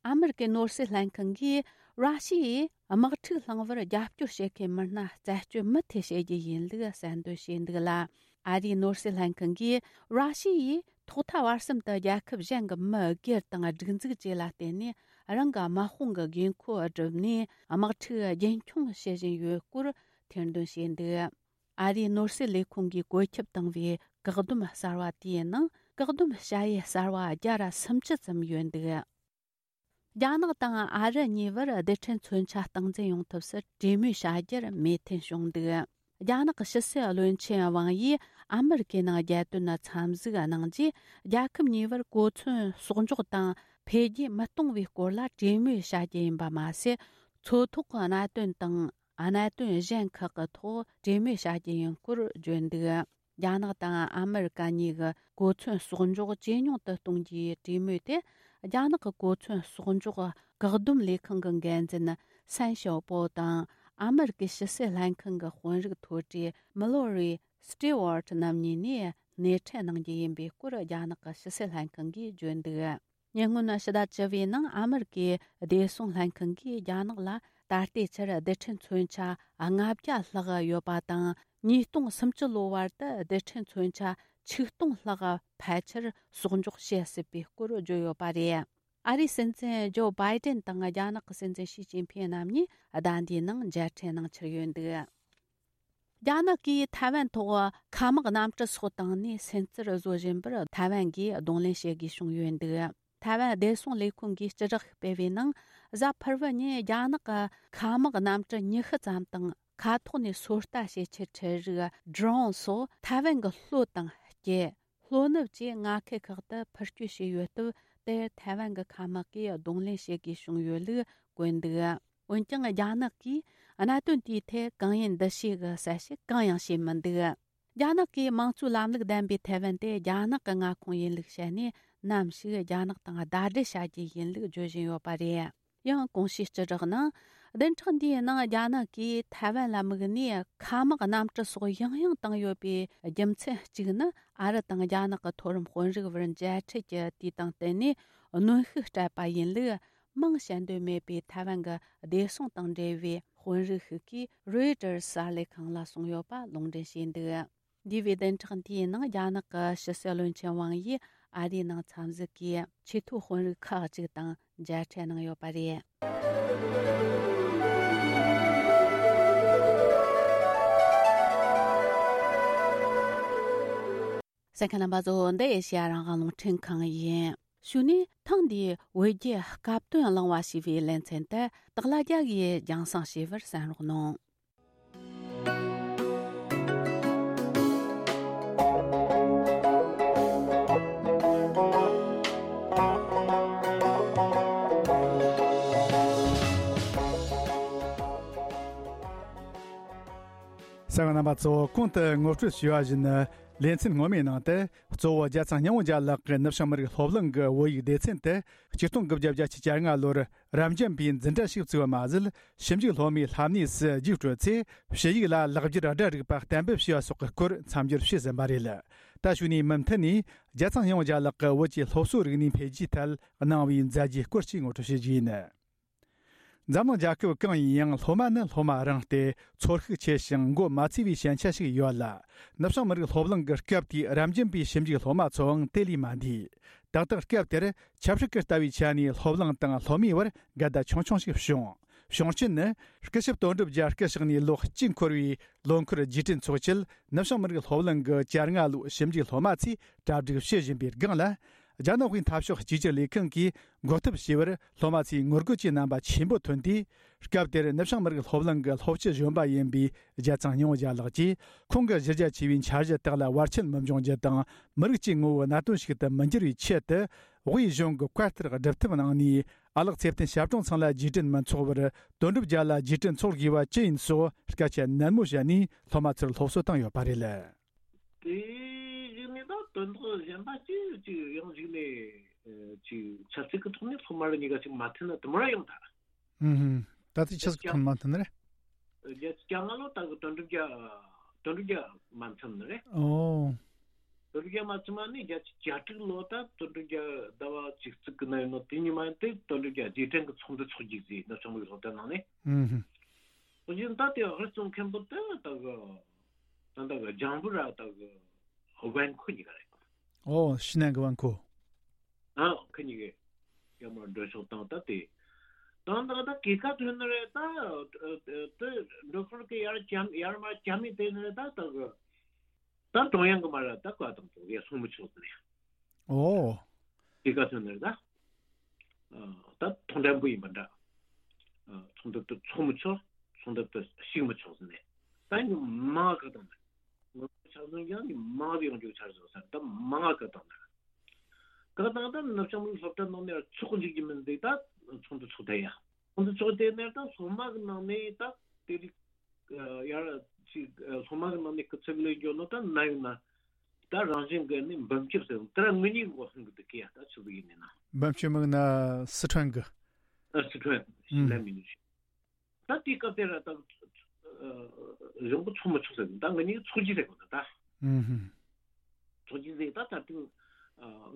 ཨ་མེ་རི་ཀའི་ནོར་སྲིད་ལྷན་ཁང་གིས་ར་ཤི་ཡས་དམག་འཁྲུག་བསླང་བར་རྒྱབ་སྐྱོར་བྱེད་མཁན་མི་སྣ་རྩད་གཅོད་མུ་མཐུད་བྱེད་རྒྱུ་ཡིན་ལུགས་གསལ་འདོན་བྱས་འདུག་ལ། ཨ་རིའི་ནོར་སྲིད་ལྷན་ཁང་གིས་ར་ཤི་ཡས་ཐོག་མཐའ་བར་གསུམ་དུ་རྒྱལ་ཁབ་གཞན་གྱི་མི་སྒེར་དང་སྒྲིག་འཛུགས་བཅས་ལ་བརྟེན་ནས། རང་གི་དམག་དཔུང་གི་དགོས་མཁོ་བསྒྲུབས་ནས། དམག་འཁྲུག་རྒྱུན་འཁྱོངས་བྱེད་བཞིན་ཡོད་སྐོར་ཐེར་འདོན་བྱས་འདུག་ཨ་རིའི་ནོར་སྲིད་ལས་ཁུངས་ཀྱིས་བཀོད་ཁྱབ་བཏང་བའི་བཀག་སྡོམ་གསར་བ་དེའི་ནང་། བཀག་སྡོམ་བྱ་ཡུལ་གསར་བ་བརྒྱ་ར་སུམ་ཅུ་ཙམ་ཡོད་འདུག་རྒྱ་ནག་དང་ཨ་རི་གཉིས་བར་རྡུལ་ཕྲན་མཚོན་ཆ་སྟངས་འཛིན་ཡོང་ཐབས་སུ་གྲོས་མོལ་བྱ་རྒྱུར་མོས་མཐུན་བྱུང་འདུག་རྒྱ་ནག་ཕྱི་སྲིད་བློན་ཆེན་ཝང་ཡིས་ཨ་མེ་རི་ཀའི་ནང་རྒྱལ་དོན་འཚམས་གཟིགས་གནང་རྗེས། རྒྱལ་ཁབ་གཉིས་བར་གོ་མཚོན་གསོག་འཇོག་དང་འཕེལ་རྒྱས་མི་གཏོང་བའི་སྐོར་ལ་གྲོས་མོལ་བྱ་རྒྱུ་ཡིན་པ་མ་ཟད། མཚོ་ཐོག་གི་གནད་དོན་དང་། གནད་དོན་གཞན་ཁག་གི་ཐོག་གྲོས་མོལ་བྱ་རྒྱུ་ཡིན་སྐོར་བརྗོད་འདུག་རྒྱ་ནག་དང་ཨ་མེ་རི་ཀ་གཉིས་ཀྱི་གོ་མཚོན་གསོག་འཇོག་ཇེ་ཉུང་དུ་གཏོང་རྒྱུའི་གྲོས་མོལ་དེ། རྒྱ་ནག་གི་གོ་མཚོན་གསོག་འཇོག་བཀག་སྡོམ་ལས་ཁང་གི་འགན་འཛིན་སན་ཞའོ་པོ་དང་། ཨ་མེ་རི་ཀའི་ཕྱི་སྲིད་ལྷན་ཁང་གི་དཔོན་རིགས་མཐོ་གྲས་མི་ལོ་རི་སི་ཊི་ཝར་ཊི་རྣམ་གཉིས་ནས་སྣེ་ཁྲིད་གནང་རྒྱུ་ཡིན་པའི་སྐོར། རྒྱ་ནག་གི་ཕྱི་སྲིད་ལྷན་ཁང་གིས་བརྗོད་འདུག་ཉེ་སྔོན་ཕྱི་ཟླ་བཅུ་བའི་ནང་ཨ་མེ་རི་ཀའི་བདེ་སྲུང་ལྷན་ཁང་གིས་རྒྱ་ནག་ལ་ད་ལྟའི་ཆར་རྡུལ་ཕྲན་མཚོན་ཆ་ལྔ་བརྒྱ་ལྷག་ཡོད་པ་དང་། ཉིས་སྟོང་སུམ་ཅུ་ལོ་བར་དུ་རྡུལ་ཕྲན་མཚོན་ཆ་ཆིག་སྟོང་ལྷག་ཕལ་ཆེར་གསོག་འཇོག་བྱེད་སྲིད་པའི་སྐོར་བརྗོད་ཡོད་པ་རེད། ཨ་རིའི་སྲིད་འཛིན་ཇོ་བྷའི་ཏན་དང་རྒྱ་ནག་གི་སྲིད་འཛིན་ཞི་ཅིན་ཕིན་རྣམ་གཉིས་ཟླ་འདིའི་ནང་མཇལ་འཕྲད་གནང་འཆར་ཡོད་འདུག་རྒྱ་ནག་གིས་ཐའེ་ཝན་ཐོག་མཁའ་དམག་གནམ་གྲུ་སོགས་བཏང་ནས་སེམས་ཚོར་བཟོ་བཞིན་པར། ཐའེ་ཝན་གྱིས་གདོང་ལེན་བྱེད་དགོས་བྱུང་ཡོད་འདུག་ཐའེ་ཝན་བདེ་སྲུང་ལས་ཁུངས་ཀྱིས་སྤྱི་བསྒྲགས་སྤེལ་བའི་ནང་། གཟའ་ཕུར་བུ་ཉིན་རྒྱ་ནག་གི་མཁའ་དམག་གནམ་གྲུ་ཉི་ཤུ་ཙམ་དང་། མཁའ་ཐོག་ནས་སོ་ལྟ་བྱེད་ཆེད་འཕྲུལ་རིགས་ཌྲོན་སོགས་ཐའེ་ཝན་གྱི་ལྷོ་དང་སྐྱེ། ལྷོ་ནུབ་བཅས་མངའ་ཁུལ་ཁག་ཏུ་འཕུར་སྐྱོད་བྱས་ཡོད་སྟབས། དེར་ཐའེ་ཝན་གྱི་མཁའ་དམག་གིས་གདོང་ལེན་བྱེད་དགོས་བྱུང་ཡོད་ལུགས་བཀོད་འདུག་འོན་ཀྱང་། རྒྱ་ནག་གིས་གནད་དོན་དེའི་ཐད་གང་ཡིན་འདི་ཞིག་གི་གསལ་བཤད་གང་ཡང་བྱས་མི་འདུག་རྒྱ་ནག་གིས་དམངས་གཙོའི་ལམ་ལུགས་ལྡན་པའི་ཐའེ་ཝན་དེ་རྒྱ་ནག་གི་མངའ་ཁོངས་ཡིན་ལུགས་བཤད་ནས། ནམ་ཞིག་རྒྱ་ནག་དང་ཟླ་སྒྲིལ་བྱ་རྒྱུ་ཡིན་ལུགས་བརྗོད་བཞིན་ཡོད་པ་རེད། ཡང་གོང་ཞུས་སྤྱི་བསྒྲགས་ནང་། བདུན་ཕྲག་འདིའི་ནང་རྒྱ་ནག་གིས་ཐའེ་ཝན་ལ་དམིགས་ནས་མཁའ་དམག་གནམ་གྲུ་སོགས་ཡང་ཡང་བཏང་ཡོད་པའི་རྒྱུ་མཚན་གཅིག་ནི། ཨ་རི་དང་རྒྱ་ནག་གི་མཐོ་རིམ་དཔོན་རིགས་བར་མཇལ་འཕྲད་ཀྱི་དུས་དང་བསྟུན་ནས་གནོན་ཤུགས་སྤྲད་པ་ཡིན་ལུགས། མིང་བཤད་འདོད་མེད་པའི་ཐའེ་ཝན་གྱི་བདེ་སྲུང་དང་འབྲེལ་བའི་ དཔོན་རིགས་ཤིག་གིས་རོའི་ཊར་གསར་ལས་ཁང་ལ་གསུངས་ཡོད་པ་ལུང་འདྲེན་བྱས་འདུག། འདས་པའི་བདུན་ཕྲག་འདིའི་ནང་རྒྱ་ནག་གི་ཕྱི་སྲིད་བློན་ཆེན་ཝང་ཡིས་ཨ་རིའི་ནང་འཚམས་གཟིགས་ཀྱིས་ཆེས་མཐོའི་དཔོན་རིགས་ཁག་ཅིག་དང་མཇལ་འཕྲད་གནང་ཡོད་པ་རེད། གསན་མཁན་རྣམ་པ་ཚོ། འདི་ཨེ་ཤེ་ཡ་རང་དབང་རླུང་འཕྲིན་ཁང་ཡིན། གཞུག་ནས་ཐེངས་འདིའི་བོད་རྒྱའི་སྐབས་དོན་གླེང་བ་ཞེས་པའི་ལེ་ཚན་དེ་སྟག་ལྷ་རྒྱལ་གྱིས་རྒྱང་སྲིང་བྱས་པར་གསན་རོགས་གནང་། གསན་པ་རྣམ་པ་ཚོ། གོང་དུ་ངོ་སྤྲོད་བྱས་པ་བཞིན། ལེ་ཚན་སྔོན་མའི་ནང་དུ་གཙོ་བོ་རྒྱལ་ཚང་སྙིང་པོ་རྒྱལ་ལགས་ཀྱི་ནུབ་བྱང་མི་རིགས་སློབ་གླིང་གི་བོད་ཡིག་སྡེ་ཚན་དེ་ཆིག་སྟོང་དགུ་བརྒྱ་བརྒྱད་ཅུ་གྱ་ལྔ་ལོར་རབ་འབྱམས་པའི་འཛིན་གྲྭ་ཞིག་བཙུགས་པ་མ་ཟད། ཞིབ་འཇུག་སློབ་མའི་ལྷབ་གནས་སུ་རྒྱུགས་སྤྲོད་ཚེ། ཕྱི་ཡིག་ལ་ལེགས་སྦྱར་སྒྲ་རིག་པ་གཏན་འབེབས་བྱས་པ་སོགས་ཀྱི་སྐོར་མཚམས་སྦྱོར་བྱས་ཟིན་པ་རེད། ད་གཞུག་ནས་མུ་མཐུད་ནས་རྒྱལ་ཚང་སྙིང་པོ་རྒྱལ་ལགས་ཀྱི་བོད་ཀྱི་སློབ་གསོའི་རིག་གནས་འཕེལ་རྒྱས་ཐད་གནང་བའི་མཛད་རྗེས་སྐོར་གྱི་ངོ་སྤྲོད་བྱེད་རྒྱུ་ཡིན། འཛམ་གླིང་རྒྱལ་ཁབ་གང་ཡིན་ཡང་སློབ་མ་ནི་སློབ་མ་རང་སྟེ། ཚོར་ཤུགས་ཆེ་ཞིང་མགོ་མ་ཚོས་པའི་ཞན་ཆ་ཞིག་ཡོད་ལ། ནུབ་བྱང་མི་རིགས་སློབ་གླིང་གི་སྐབས་དེའི་རབ་འབྱམས་པའི་ཞིབ་འཇུག་སློབ་མ་ཚོའང་དེ་ལས་མ་འདས། ཏག་ཏག་སྐབས་དེར་ཆབ་སྲིད་ཀྱི་ལྟ་བའི་ཆ་ནས་སློབ་གླིང་དང་སློབ་མའི་བར་འགལ་ཟླ་ཆུང་ཆུང་ཞིག་བྱུང་། བྱུང་རྐྱེན་ནི། སྐུ་ཞབས་དོན་གྲུབ་རྒྱལ་སྐུ་གཤེགས་ནས་ལོ་གཅིག་འཁོར་བའི་ལོ་འཁོར་རྗེས་དྲན་ཚོགས་ཆེད་ནུབ་བྱང་མི་རིགས་སློབ་གླིང་གི་བཅོ་ལྔ་ལོའི་ཞིབ་འཇུག་སློབ་མ་ཚོས་གྲ་སྒྲིག་བྱེད་བཞིན་པའི་སྒང་ལ། རྒྱ་ནག་པའི་འཐབ་ཕྱོགས་གཅིག་གྱུར་ལས་ཁུངས་ཀྱིས་འགོག་ཐབས་བྱས་པར་སློབ་མ་ཚོའི་ངོ་རྒོལ་གྱི་རྣམ་པ་ཆེན་པོ་ཐོན་ཏེ། སྐབས་དེར་ནུབ་བྱང་མི་རིགས་སློབ་གླིང་གི་སློབ་སྤྱི་གཞོན་པ་ཡིན་པའི་རྒྱལ་ཚང་སྙིང་པོ་རྒྱལ་ལགས་ཀྱིས་ཁོང་གི་གཞི་རྒྱ་ཆེ་བའི་འཆར་གཞི་དག་ལ་བར་ཆད་མི་འབྱུང་རྒྱུ་དང་། མི་རིགས་ཀྱི་ངོ་བོའི་གནད་དོན་ཞིག་ཏུ་མི་འགྱུར་བའི་ཆེད་དུ། དབུས་གཞུང་གི་བཀའ་ལྟར་སྒྲུབ་ཐབས་གནང་ནས། ཨ་ལགས་ཚེ་བརྟན་ཞབས་དྲུང་ཚང་ལ་རྗེས་དྲན་མི་འཚོགས་པར། དོན་གྲུབ་རྒྱལ་ལ་རྗེས་དྲན་འཚོགས་དགོས་པ་ཅི་ཡིན་སོགས་སྐད་ཆ་ནན་མོ་བཤད་ནས་སློབ་མ་ཚོར་སློབ་གསོ་བཏང་ཡོད་པ་རེད། དེ་གཞུག་ནས་ད་དོན་དག་གཞན་པ་ཅིག་ཅིག་ཡང་གཞུག་ནས་ཅིག་ཆབ་སྲིད་ཀྱི་ཐོག་ནས་སློབ་མ་རེ་གཉིས་ཀ་ཅིག་མ་མཐུན་ན་དུ་མ་ར་ཡོང་ད། ཨུམ། ད་ལྟའི་ཆབ་སྲིད་ཀྱི་ཐོག་མ་མཐུན་ནི་རེད། རྒྱ་ཆ་ང་ལོ་ད་གི་དོན་གྲུབ་རྒྱ་དོན་གྲུབ་རྒྱ་མ་མཚམས་ནི་རེད། ཨོ། དོན་གྲུབ་རྒྱ་མ་མཚམས་ནི་རྒྱ་ཆ་གྱ་དྲུག་ལོ་ད་དོན་གྲུབ་རྒྱ་ཟླ་བ་གཅིག་ཙིག་གི་ན་ཡོད་ནོ་དེ་ཉི་མ་དེ་དོན་གྲུབ་རྒྱ་རྗེས་དྲན་གི་ཚོགས་འདུ་ཚོགས་རྒྱུ་ཟེར་ནི་ཚོགས་འདུ་ཚོགས་དེ་ནང་ནས། ཨུམ། ཚོགས་རྒྱུ་ད་དེ་ཧུར་བརྩོན་མཁན་པོ་དེ་ད་གི་ད་ད་གི་ལྗང་བུ་ར་ད་གི་ཝན་ཁོ་གཉིས་ཀ་རེད། ཨོ། ཕྱི་ནང་གི་ཝན་ཁོ། ཨ། ཁོ་གཉིས་ཀས་ཡར་མར་འགྲོ་ཕྱོགས་བཏང་ད་དེ། བཏང་ད་ད་གེ་ཀ་ཐོན་ནི་རེད་ད། དེ་འགྲོ་ཁོར་གི་ཡར་བཅམ་ཡར་མར་བཅམ་མི་དེ་ནི་རེད་ད་ད་གི། ད་ཀྲུང་དབྱང་གི་མ་ར་ད་བཀའ་དང་ཐོག་ཡར་སོང་མི་ཆོག་ཟེར་ནས། ཨོ། གེ་ཀ་ཐོན་ནི་རེད་ད། ཨ། ད་ཐོག་མཐའ་བུ་ཡིན་པ་འདྲ། ཨ། ཚོགས་འདུ་དེ་ཚོགས་མི་ཆོག་ཚོགས་འདུ་དེ་ཞུགས་མི་ཆོག་ཟེར་ནས། ད་ཡིན་མང་བཀའ་བཏང་ནི། ངོ་ཆགས་སོང་ཀྱང་ནི་མང་བའི་ཡོང་རྒྱུ་ཆ་བཞག་ས་ད་མང་བཀའ་བཏང་ནི། བཀའ་བཏང་ད་ནུབ་བྱང་མི་སློབ་གྲྭ་ནང་ནས་ཚོགས་འཇུག་གི་མི་འདུག་ད་ཚོགས་འདུ་ཚོགས་ཐལ་ཡ། ཚོགས་འདུ་ཚོགས་དེ་ནས་ད་སློབ་མ་གི་ནང་ནས་ད་དེ་རིགས་ཡར་ཅིག་སློབ་མ་གི་ནང་ནས་སྐུ་ཚབ་ལས་འགྱོ་ནོ་ད་ན་ཡོད་ན། ད་རང་བཞིན་གི་ནི་འབུམ་སྐྱིད་ཟེར་དེ་ར་ངེད་གཉིས་མགོ་ཧང་གི་འདུག་གི་ཡ། ད་ཆི་ཟིག་ཡིན་ནི་ན། འབུམ་སྐྱིད་མིག་ན་སི་ཁྲོན་གི། ཨ། སི་ཁྲོན་ཞིག་ལ་མི་ཉུ་ཞིག་ད་དེའི་སྐབས་དེ་ར་ད་གཞུང་གི་ཚོགས་མི་ཆོག་ཟེར་ད་ངེད་གཉིས་ཚོགས་རྒྱུ་ཟེར་གོ་ད་ད། ཨུམ། ཚོགས་རྒྱུ་ཟེར་ད་ད་དུང་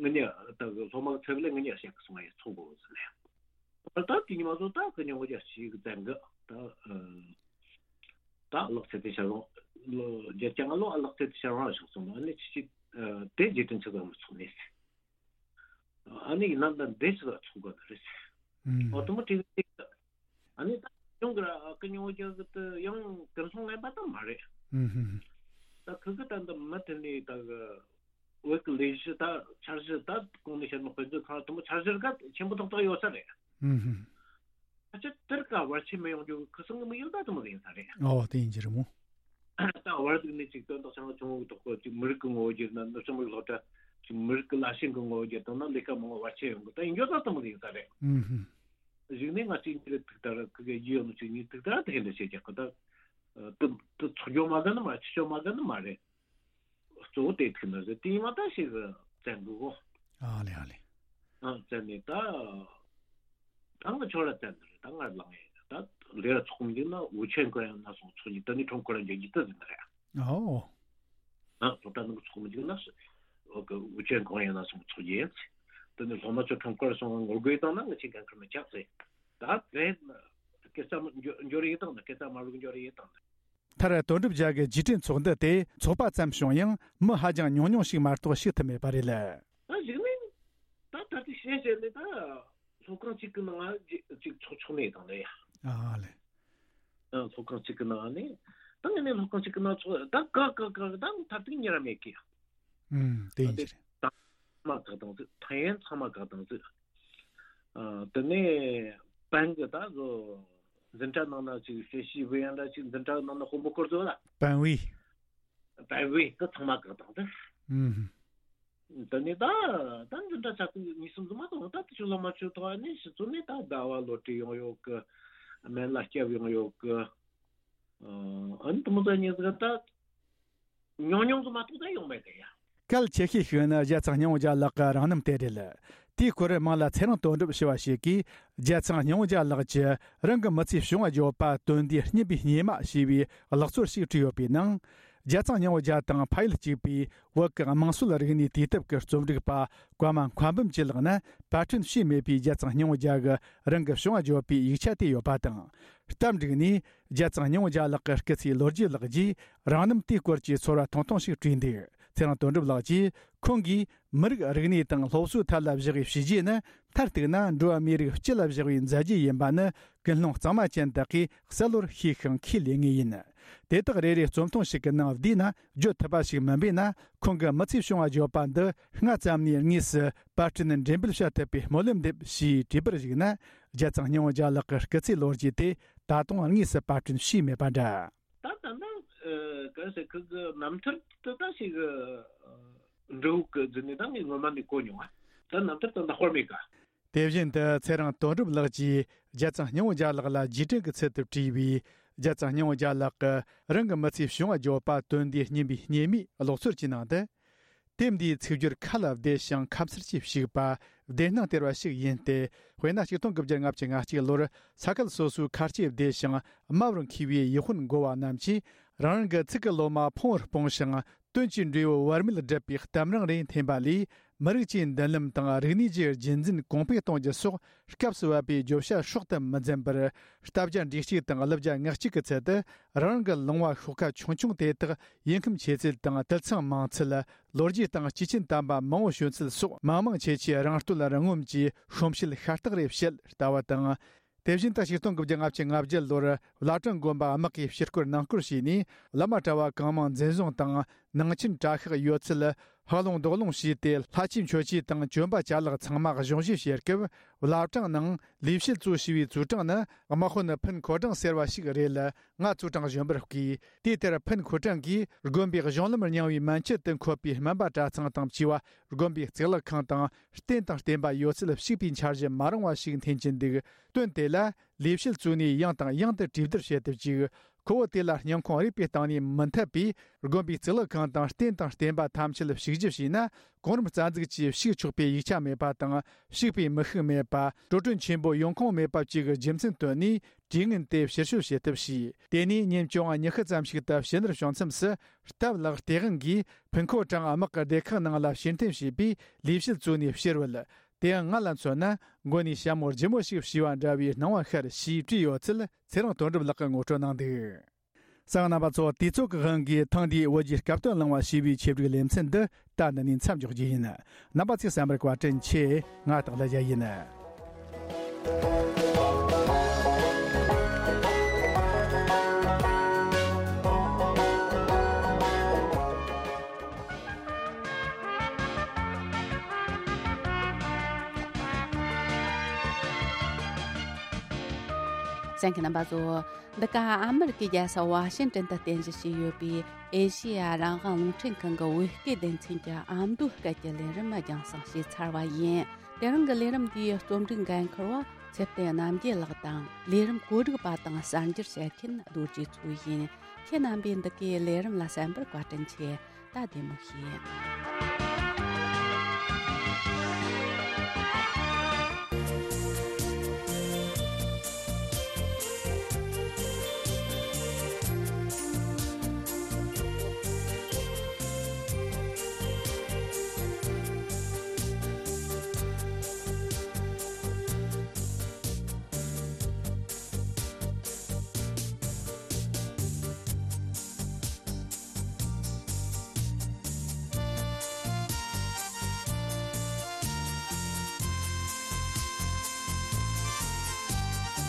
ངེད་གཉིས་ད་སློབ་མ་གི་ཚབ་ལས་ངེད་གཉིས་བཤད་གི་སོང་ཡ་ཚོགས་དགོས་ཟེར་ལས། ད་དེ་ཉི་མ་ཚོ་ད་གི་ཉོ་གི་ཞིག་གི་བཙན་གི་ད། ད་ཨ་ལགས་ཚེ་བརྟན་ཞབས་དྲུང་ལོ་བརྒྱད་ཅུ་ལྔ་ལོ་ཨ་ལགས་ཚེ་བརྟན་ཞབས་དྲུང་ལ་ཞུགས་སོང་། ཨ་ནི་ཅི་ཅི་དེ་རྗེས་དྲན་ཆེ་ཙམ་མི་ཚོགས་ནས། ཨ་ནི་ཡིན་ན་ད་འདི་ཅི་ལ་ཚོགས་དགོས་ནི་རེད། ཨོ་དུ་མོ་ཀྲིག་ཀྲིག་ཨ་ནི་ད་ཡོང་གི་ར་ཨ་ཀི་ཉོ་རྒྱུ་གི་དུ་ཡང་དེང་སང་ངན་པ་ད་མ་རེད། ད་ཁུ་གི་ད་འདི་མི་དེ་ནི་ད་གི་བོད་ཀྱི་ལས་གཞི་ད་འཆར་གཞི་ད་གོང་ནས་བཤད་ན་དཔེ་མཛོད་ཁང་དུ་མོ་འཆར་གཞི་ག་ཆེན་པོ་ཏག་ཏག་ཡོད་ས་རེད། ཨུམ་ཧུམ། ད་ཆ་དེར་ཀ་བར་ཆད་མི་ཡོང་རྒྱུ་ཁུ་སང་གི་དམིགས་ཡུལ་ད་དུ་མོ་ཡིན་ས་རེད། ཨོ་དེ་ཡིན་གྱི་རེད་མོ། ད་བར་དུ་ནས་ཅིག་དོན་དག་ཆེན་པོ་ཆུང་ངུ་གི་ཐོག་གི་ཅིག་མི་རིགས་ཀྱི་ངོ་བོ་བསྒྱུར་ན་ནུབ་ཕྱོགས་མི་རིགས་སློབ་གྲྭ་ཅིག་མི་རིགས་ཀྱི་ལ་ཞེན་གྱི་ངོ་བོ་བསྒྱུར་བཏང་ན་ལས་ཀ་མང་བོ་བར་ཆད་ཡོང་གི་ད་ཡིན་རྒྱུ་ད་དུ་མོ་ཡིན་ས་རེད། ཨུམ་ཧུམ། གཞུག་ནས་ང་གཅིག་གཉིས་རེ་ཐུག་ད་ར་ཁུ་གེ་ཡིད་ཡོད་ནོ་གཅིག་གཉིས་ཐུག་ད་ར་དེ་ཧེ་འདྲ་བྱེད་རྒྱག་གི་ད། དུ་དུ་ཚོ་སྐྱོ་མ་གི་ནི་མ་ཆུ་སྐྱོ་མ་གི་ནི་མ་རེད། གཙོ་བོ་དེ་ཐུག་ནི་རེད་དེ་ཡིན་མ་ད་ཞིག་བཙན་གི་གོ། ཨ་ལེ་ཨ་ལེ། ཨ་བཙན་ནི་ད། ད་ང་ཆོ་ར་བཙན་ནི་རེད་ད་ང་ལང་ཡིན་ད་ལས་ར་ཚོགས་མི་ན་འུ་ཆེན་ཁོ་ཡང་ན་སོང་ཚོགས་ཀྱི་ད་ནི་ཁྲོམ་ཁོ་ར་འཇོག་གི་ད་ཟིན་ནི་རེད། ཨོ། ཨ་སློབ་གྲྭ་ནང་གི་ཚོགས་མི་ཅིག་ན་འུ་ཆེན་ཁོ་ཡང་ན་སོང་ཚོགས་ཀྱི་ཡིན། ད་ནི་སློབ་མ་ཚོ་ཁྲོམ་ཁོ་ར་སོང་ང་ངོ་རྒོལ་བཏང་ན་ང་ཆེན་གང་ཁར་མི་ཆགས་ཟེར། ད་བཙན་ནི་སྐད་ སྐད་ཆ་མ་འགྱོ་འགྱོ་རེ་ཡེ་དང་ནི་སྐད་ཆ་མ་རུག་འགྱོ་རེ་ཡེ་དང་ནི། མཐར་དོན་གྲུབ་རྒྱལ་གྱི་རྗེས་དྲན་ཚོགས་འདུ་དེ་ཚོགས་པ་ཙམ་བྱུང་ཡང་མི་ཧ་ཅང་ཉུང་ཉུང་ཞིག་མ་གཏོགས་ཞུགས་ཐུབ་མེད་པ་རེད། ཨ་གཞིགས་ནས་ད་ད་ལྟའི་བཤད་བཤད་ནས་ད་སློབ་ཁང་གཅིག་གི་ནང་ང་གཅིག་ཚོགས་ཆོག་ནས་དང་ལས་ཡ། ཨ་ལས། ཨ་སློབ་ཁང་གཅིག་གི་ནང་ནས་ད་ངས་ནས་སློབ་ཁང་གཅིག་གི་ནང་ཚོགས་ད་ག་ག་ག་ད་མཐར་ཐུག་གཉེར་མེད་ཀི། ཨུམ་དེ་ཡིན་ད་གྱི་རེད། ཚང་མ་ག་དང་ཚིག་ཐ་ཡན་ཚང་མ་ག་དང་ཚིག་ཨ་དེ་ནས་པན་གི་ད་བཟོ་འཛིན་གྲྭ་ནང་ན་ཅིག་བཤད་ཤེས་བུ་ཡང་འདྲ་ཅིག་འཛིན་གྲྭ་ནང་ན་དཔོན་པོ་སྐོར་བཟོ་ལ། པན་ཝི། པན་ཝི་ད་ཚང་མ་ག་དང་ཚིག་ཨུམ། དེ་ནས་ད་ད་འཛིན་གྲྭ་ཆ་ཚིག་གཉིས་གསུམ་ཙམ་མ་གཏོགས་ད་དེ་ཚོ་ལ་མ་ཆོད་ཐོག་ནས་ཕྱི་ཚོ་ནས་ད་ཟླ་བ་ལོ་ཏྲི་ཡོང་ཡོད་གི། སྨན་བླ་སྐྱབས་ཡོང་ཡོད་གི། ཨ་ནི་དུ་མོ་ད་ཉེ་ཟིག་ད་ཉུང་ཉུང་ཙམ་མ་གཏོགས་ད་ཡོང་མེད་དེ་ཡ། གལ་ཆེ་ཤོས་ཤིག་ནི་རྒྱལ་ཚང་སྙིང་བོ་རྒྱལ་ལགས་ཀྱི་རང་རྣམ་དེ་རེད། དེའི་སྐོར་མིང་ལ་ཚེ་རིང་དོན་གྲུབ་ཞུ་བ་ཞིག་གིས་རྒྱལ་ཚང་སྙིང་བོ་རྒྱལ་ལགས་ཀྱིས་རང་གི་མི་ཚེའི་བྱུང་བ་བརྗོད་པ་དོན་འདིའི་སྙིམ་པའི་སྙེ་མ་ཞེས་པའི་ཀློག་ཚོར་ཞིག་བྲིས་ཡོད་པའི་ནང་། རྒྱལ་ཚང་སྙིང་བོ་རྒྱལ་དང་ཕ་ཡུལ་གཅིག་པའི་བོད་ཀྱི་དམངས་སྲོལ་རིག་གནས་དུས་དེབ་ཀྱི་རྩོམ་སྒྲིག་པ་ཀརྨ་མཁའ་འབུམ་གྱི་ལག་ན་པར་སྐྲུན་བྱས་མེད་པའི་རྒྱལ་ཚང་སྙིང་བོ་རྒྱལ་གྱི་རང་གི་བྱུང་བ་བརྗོད་པའི་ཡིག་ཆ་དེ་ཡོད་པ་དང་། གཏམ་བསྒྲིགས་ནས་རྒྱལ་ཚང་སྙིང་བོ་རྒྱལ་ལགས་ཀྱི་སྐུ་ཚེའི་ལོ་རྒྱུས་ལགས་ཀྱིས་རང་རྣམ་དེའི་སྐོར་གྱི་ཚོར་བ་ཐུང་ཐུང་ཞིག་བྲིས་འདུག་ཚེ་རིང་དོན་གྲུབ་ལགས་ཀྱིས་ཁོང་གིས་མི་རིགས་རིག་གནས་དང་སློབ་གསོའི་ཐད་ལ་བཞག་པའི་བྱས་རྗེས་ནི་མཐར་གཏུགས་ན་འགྲོ་བ་མིའི་རིགས་སྤྱི་ལ་བཞག་པའི་མཛད་རྗེས་ཡིན་པ་ནི་ཀུན་སློང་གཙང་མ་ཅན་དག་གིས་གསལ་བོར་ཤེས་ཤིང་ཁས་ལེན་ངེས་ཡིན། དེ་དག་རེ་རེ་རྩོམ་ཐུང་ཞིག་གི་ནང་བསྡུས་ན་བརྗོད་ཐུབ་པ་ཞིག་མིན་པས་ན། ཁོང་གི་མི་ཚེའི་བྱུང་བ་བརྗོད་པ་འདི་སྔ་ཙམ་ནས་དངོས་སུ་པར་སྐྲུན་འགྲེམས་སྤེལ་བྱ་ཐུབ་པའི་སྨོན་ལམ་འདེབས་ཞེས་བྲིས་པར་གཞིགས་ན། རྒྱལ་ཚང་སྙིང་བོ་རྒྱལ་ལགས་ཀྱི་སྐུ་ཚེའི་ལོ་རྒྱུས་དེ་ད་དུང་དངོས་སུ་པར་སྐྲུན་བྱས་མེད་པ་འདྲ། ད་ད་ལྟ་ག་ཟེར་ཁུ་གི་རྣམ་ཐར་དེ་ད་ཞིག་འབྲི་འུག་གི་འཛིན་ནས་ད་ངས་སྔོན་མ་ནས་གོ་མྱོང་ང་། ད་རྣམ་ཐར་དེ་ད་དཔར་མེད་ག། དེ་བཞིན་དུ་ཚེ་རིང་དོན་གྲུབ་ལགས་ཀྱིས་རྒྱལ་ཚང་སྙིང་བོ་རྒྱལ་ལགས་ལ་རྗེས་དྲན་གྱི་ཚུལ་དུ་བྲིས་པའི་རྒྱལ་ཚང་སྙིང་བོ་རྒྱལ་ལགས་ཀྱི་རང་གི་མི་ཚེའི་བྱུང་བ་བརྗོད་པ་དོན་འདིའི་སྙིམ་པའི་སྙེ་མའི་ཀློག་ཚོར་གྱི་ནང་དུ། དེབ་འདིའི་ཚིག་སྦྱོར་ཁ་ལ་བདེ་ཞིང་ཁ་མཚར་གྱིས་ཕྱུག་པ། བདེ་སྣང་སྟེར་བ་ཞིག་ཡིན་ཏེ། དཔེར་ན་ཆིག་སྟོང་དགུ་བརྒྱ་ལྔ་བཅུ་ང་གཅིག་ལོར་ས་ཁུལ་སོ་སོའི་ཁ་ལྕེ་བདེ་ཞིང་དམར་བར་མཁས་པའི་ཡུལ་དཔོན་འགོ་བ་རྣམས་ཀྱིས་རང་རང་གི་ཚིག་གི་ལོ་མ་ཕུང་བོར་སྤུངས་ཤིང་། དོན་གྱི་འབྲས་བུ་བར་མེད་བསྒྲུབས་པའི་གཏམ་རིང་རེ་འཐེན་པ་ལས། མི་རིགས་ཀྱི་མདུན་ལམ་དང་རིག་གནས་ཀྱི་རྒྱུན་འཛིན་གོང་འཕེལ་གཏོང་རྒྱུ་སོགས་སྐབས་སུ་བབ་པའི་བརྗོད་བྱ་སྲོག་ཏུ་མི་འཛིན་པར། ལྟ་བརྒྱ་འབྲས་གཅིག་དང་ཀླུ་བརྒྱ་ངག་གཅིག་གི་ཚུལ་དུ། རང་རང་གི་ལུང་བ་ཤོག་ཁ་ཆུང་ཆུང་དེ་དག་ཡུལ་ཁམས་ཆེ་ཚད་དང་དུད་ཚང་མང་ཚད། ལོ་རྒྱུས་དང་སྐྱེས་ཆེན་དམ་པ་མང་བོ་བྱོན་ཚུལ་སོགས་མང་མང་ཆེ་ཆེ་རང་བསྟོད་རང་ངོམ་གྱི་ཤོམ་བཤད་ཤ་སྟག་རེ་བཤད་ལྟ་བ་དང་། དེ་བཞིན་དུ་ཆིག་སྟོང་དགུ་བརྒྱ་ལྔ་བཅུ་ང་བརྒྱད་ལོར་བླ་བྲང་དགོན་པ་དམག་གིས་ཕྱིར་སྐོར་ནང་སྐོར་བྱས་ནས། བླ་མ་གྲྭ་བ་གང་མང་འཛིན་བཟུང་དང་། ནང་ཆེན་གྲྭ་ཤག་ཡོད་ཚད་ཕུ་ལོང་རྡོག་ལོང་བྱས་ཏེ། ལྷ་ཆོས་མཆོད་ཆས་དང་གྱོན་པ་ཅ་ལག་ཚང་མ་གཞུང་བཞེས་བྱེད་སྐབས། བླ་བྲང་ནང་ལས་བྱེད་ཚོ་ཞུ་བའི་ཚོ་གྲངས་ནི་དམག་དཔོན་ཕུན་ཁོ་ཀྲང་ཟེར་བ་ཞིག་རེད་ལ། ང་ཚོ་གྲངས་གཞོན་པར་བསྐོས། དུས་དེར་ཕུན་ཁོ་ཀྲང་གིས་དགོན་པའི་གཞུང་ལམ་རྙིང་བའི་མན་ཆད་དུ་འཁོད་པའི་སྨན་པ་གྲྭ་ཚང་དང་བཅས་པ། དགོན་པའི་གཙུག་ལག་ཁང་དང་རྟེན་དང་བརྟེན་པ་ཡོད་ཚད་བཤིག་པའི་འཆར་གཞི་མ་རུང་བ་ཞིག་འཐེན་གྱིན་འདུག་དོན་དེ་ལ་ལས་བྱེད་ཚོ་ནས་ཡང་དང་ཡང་དུ་གྲོས་བསྡུར་བྱེད་ཐུབ་ཅིག་ཁོ་བོ་དེ་ལ་སྙིང་ཁོང་རུས་པའི་གཏིང་ནས་མི་འཐད་པས། དགོན་པའི་གཙུག་ལག་ཁང་དང་རྟེན་དང་བརྟེན་པ་ཐམས་ཅད་བཤིག་རྒྱུ་བྱས་ན། གོང་རིམ་རྩ་འཛུགས་ཀྱིས་བཤིག་ཆོག་པའི་ཡིག་ཆ་མེད་པ་དང་། བཤིག་པའི་མི་ཤུགས་མེད་པ། འགྲོ་གྲོན་ཆེན་པོ་ཡོང་ཁུངས་མེད་པ་བཅས་ཀྱི་རྒྱུ་མཚན་བཏོན་ནས། གྲོས་ངན་དེ་ཕྱིར་བཤོལ་བྱེད་ཐབས་བྱས། དེ་ནས་ཉིན་བཅོ་ལྔ་ཉི་ཤུ་ཙམ་ཞིག་ཏུ་ཕྱི་ནུར་བྱུང་མཚམས་སུ། སྟབས་ལེགས་སྟེས་དབང་གིས་ཕུན་ཁོ་ཀྲང་དམག་གི་སྡེ་ཁག་ནང་ལ་ཕྱིར་འཐེན་བྱས་པས། ལས་བྱེད་ཚོ་ནས་ཕྱིར་བུད། དེ་ཡང་ང་ལ་མཚོན་ན། མགོ་ནས་ཞྭ་མོ་ལྗིད་མོ་ཞིག་བྱས་པ་འདྲ་བའི་སྣང་བ་ཤར་ཞེས་བྲིས་ཡོད་ཚུལ་ཚེ་རིང་དོན་གྲུབ་ལགས་ཀྱིས་ངོ་སྤྲོད་གནང་འདུག་གསན་མཁན་རྣམ་པ་ཚོ། དུས་ཚོད་ཀྱི་དབང་གིས་ཐེངས་འདིའི་བོད་ཀྱི་སྐབས་དོན་གླེང་བ་ཞེས་པའི་ཆེད་བསྒྲིགས་ལེ་ཚན་འདི་ད་འདི་ནས་མཚམས་འཇོག་རྒྱུ་ཡིན། རྣམ་པ་ཚོས་གསན་པར་བཀའ་དྲིན་ཆེ། ང་སྟག་ལྷ་རྒྱལ་ཡིན། གསན་མཁན་རྣམ་པ་ཚོ། འདི་ག་ཨ་མི་རི་ཀའི་རྒྱལ་ས་ཝ་ཤིང་ཏན་དུ་རྟེན་གཞི་བྱས་ཡོད་པའི་ཨེ་ཤེ་ཡ་རང་དབང་རླུང་འཕྲིན་ཁང་གི་བོད་སྐད་སྡེ་ཚན་གྱི་ཨ་མདོའི་སྐད་ཀྱི་ལས་རིམ་རྒྱང་སྲིང་བྱས་ཚར་བ་ཡིན། དེ་རིང་གི་ལས་རིམ་འདིའི་རྩོམ་སྒྲིག་འགན་འཁུར་བ་ཚེ་བརྟན་རྣམ་རྒྱལ་ལགས་དང་། ལས་རིམ་གོ་སྒྲིག་པ་དང་གསར་འགྱུར་བཤད་མཁན་རྡོ་རྗེ་མཚོ་ཡིན། ཁྱེད་རྣམ་པས་འདི་གའི་ལས་རིམ་ལ་གསན་པར་བཀའ་དྲིན་ཆེ། ད་བདེ་མོ་བྱོས།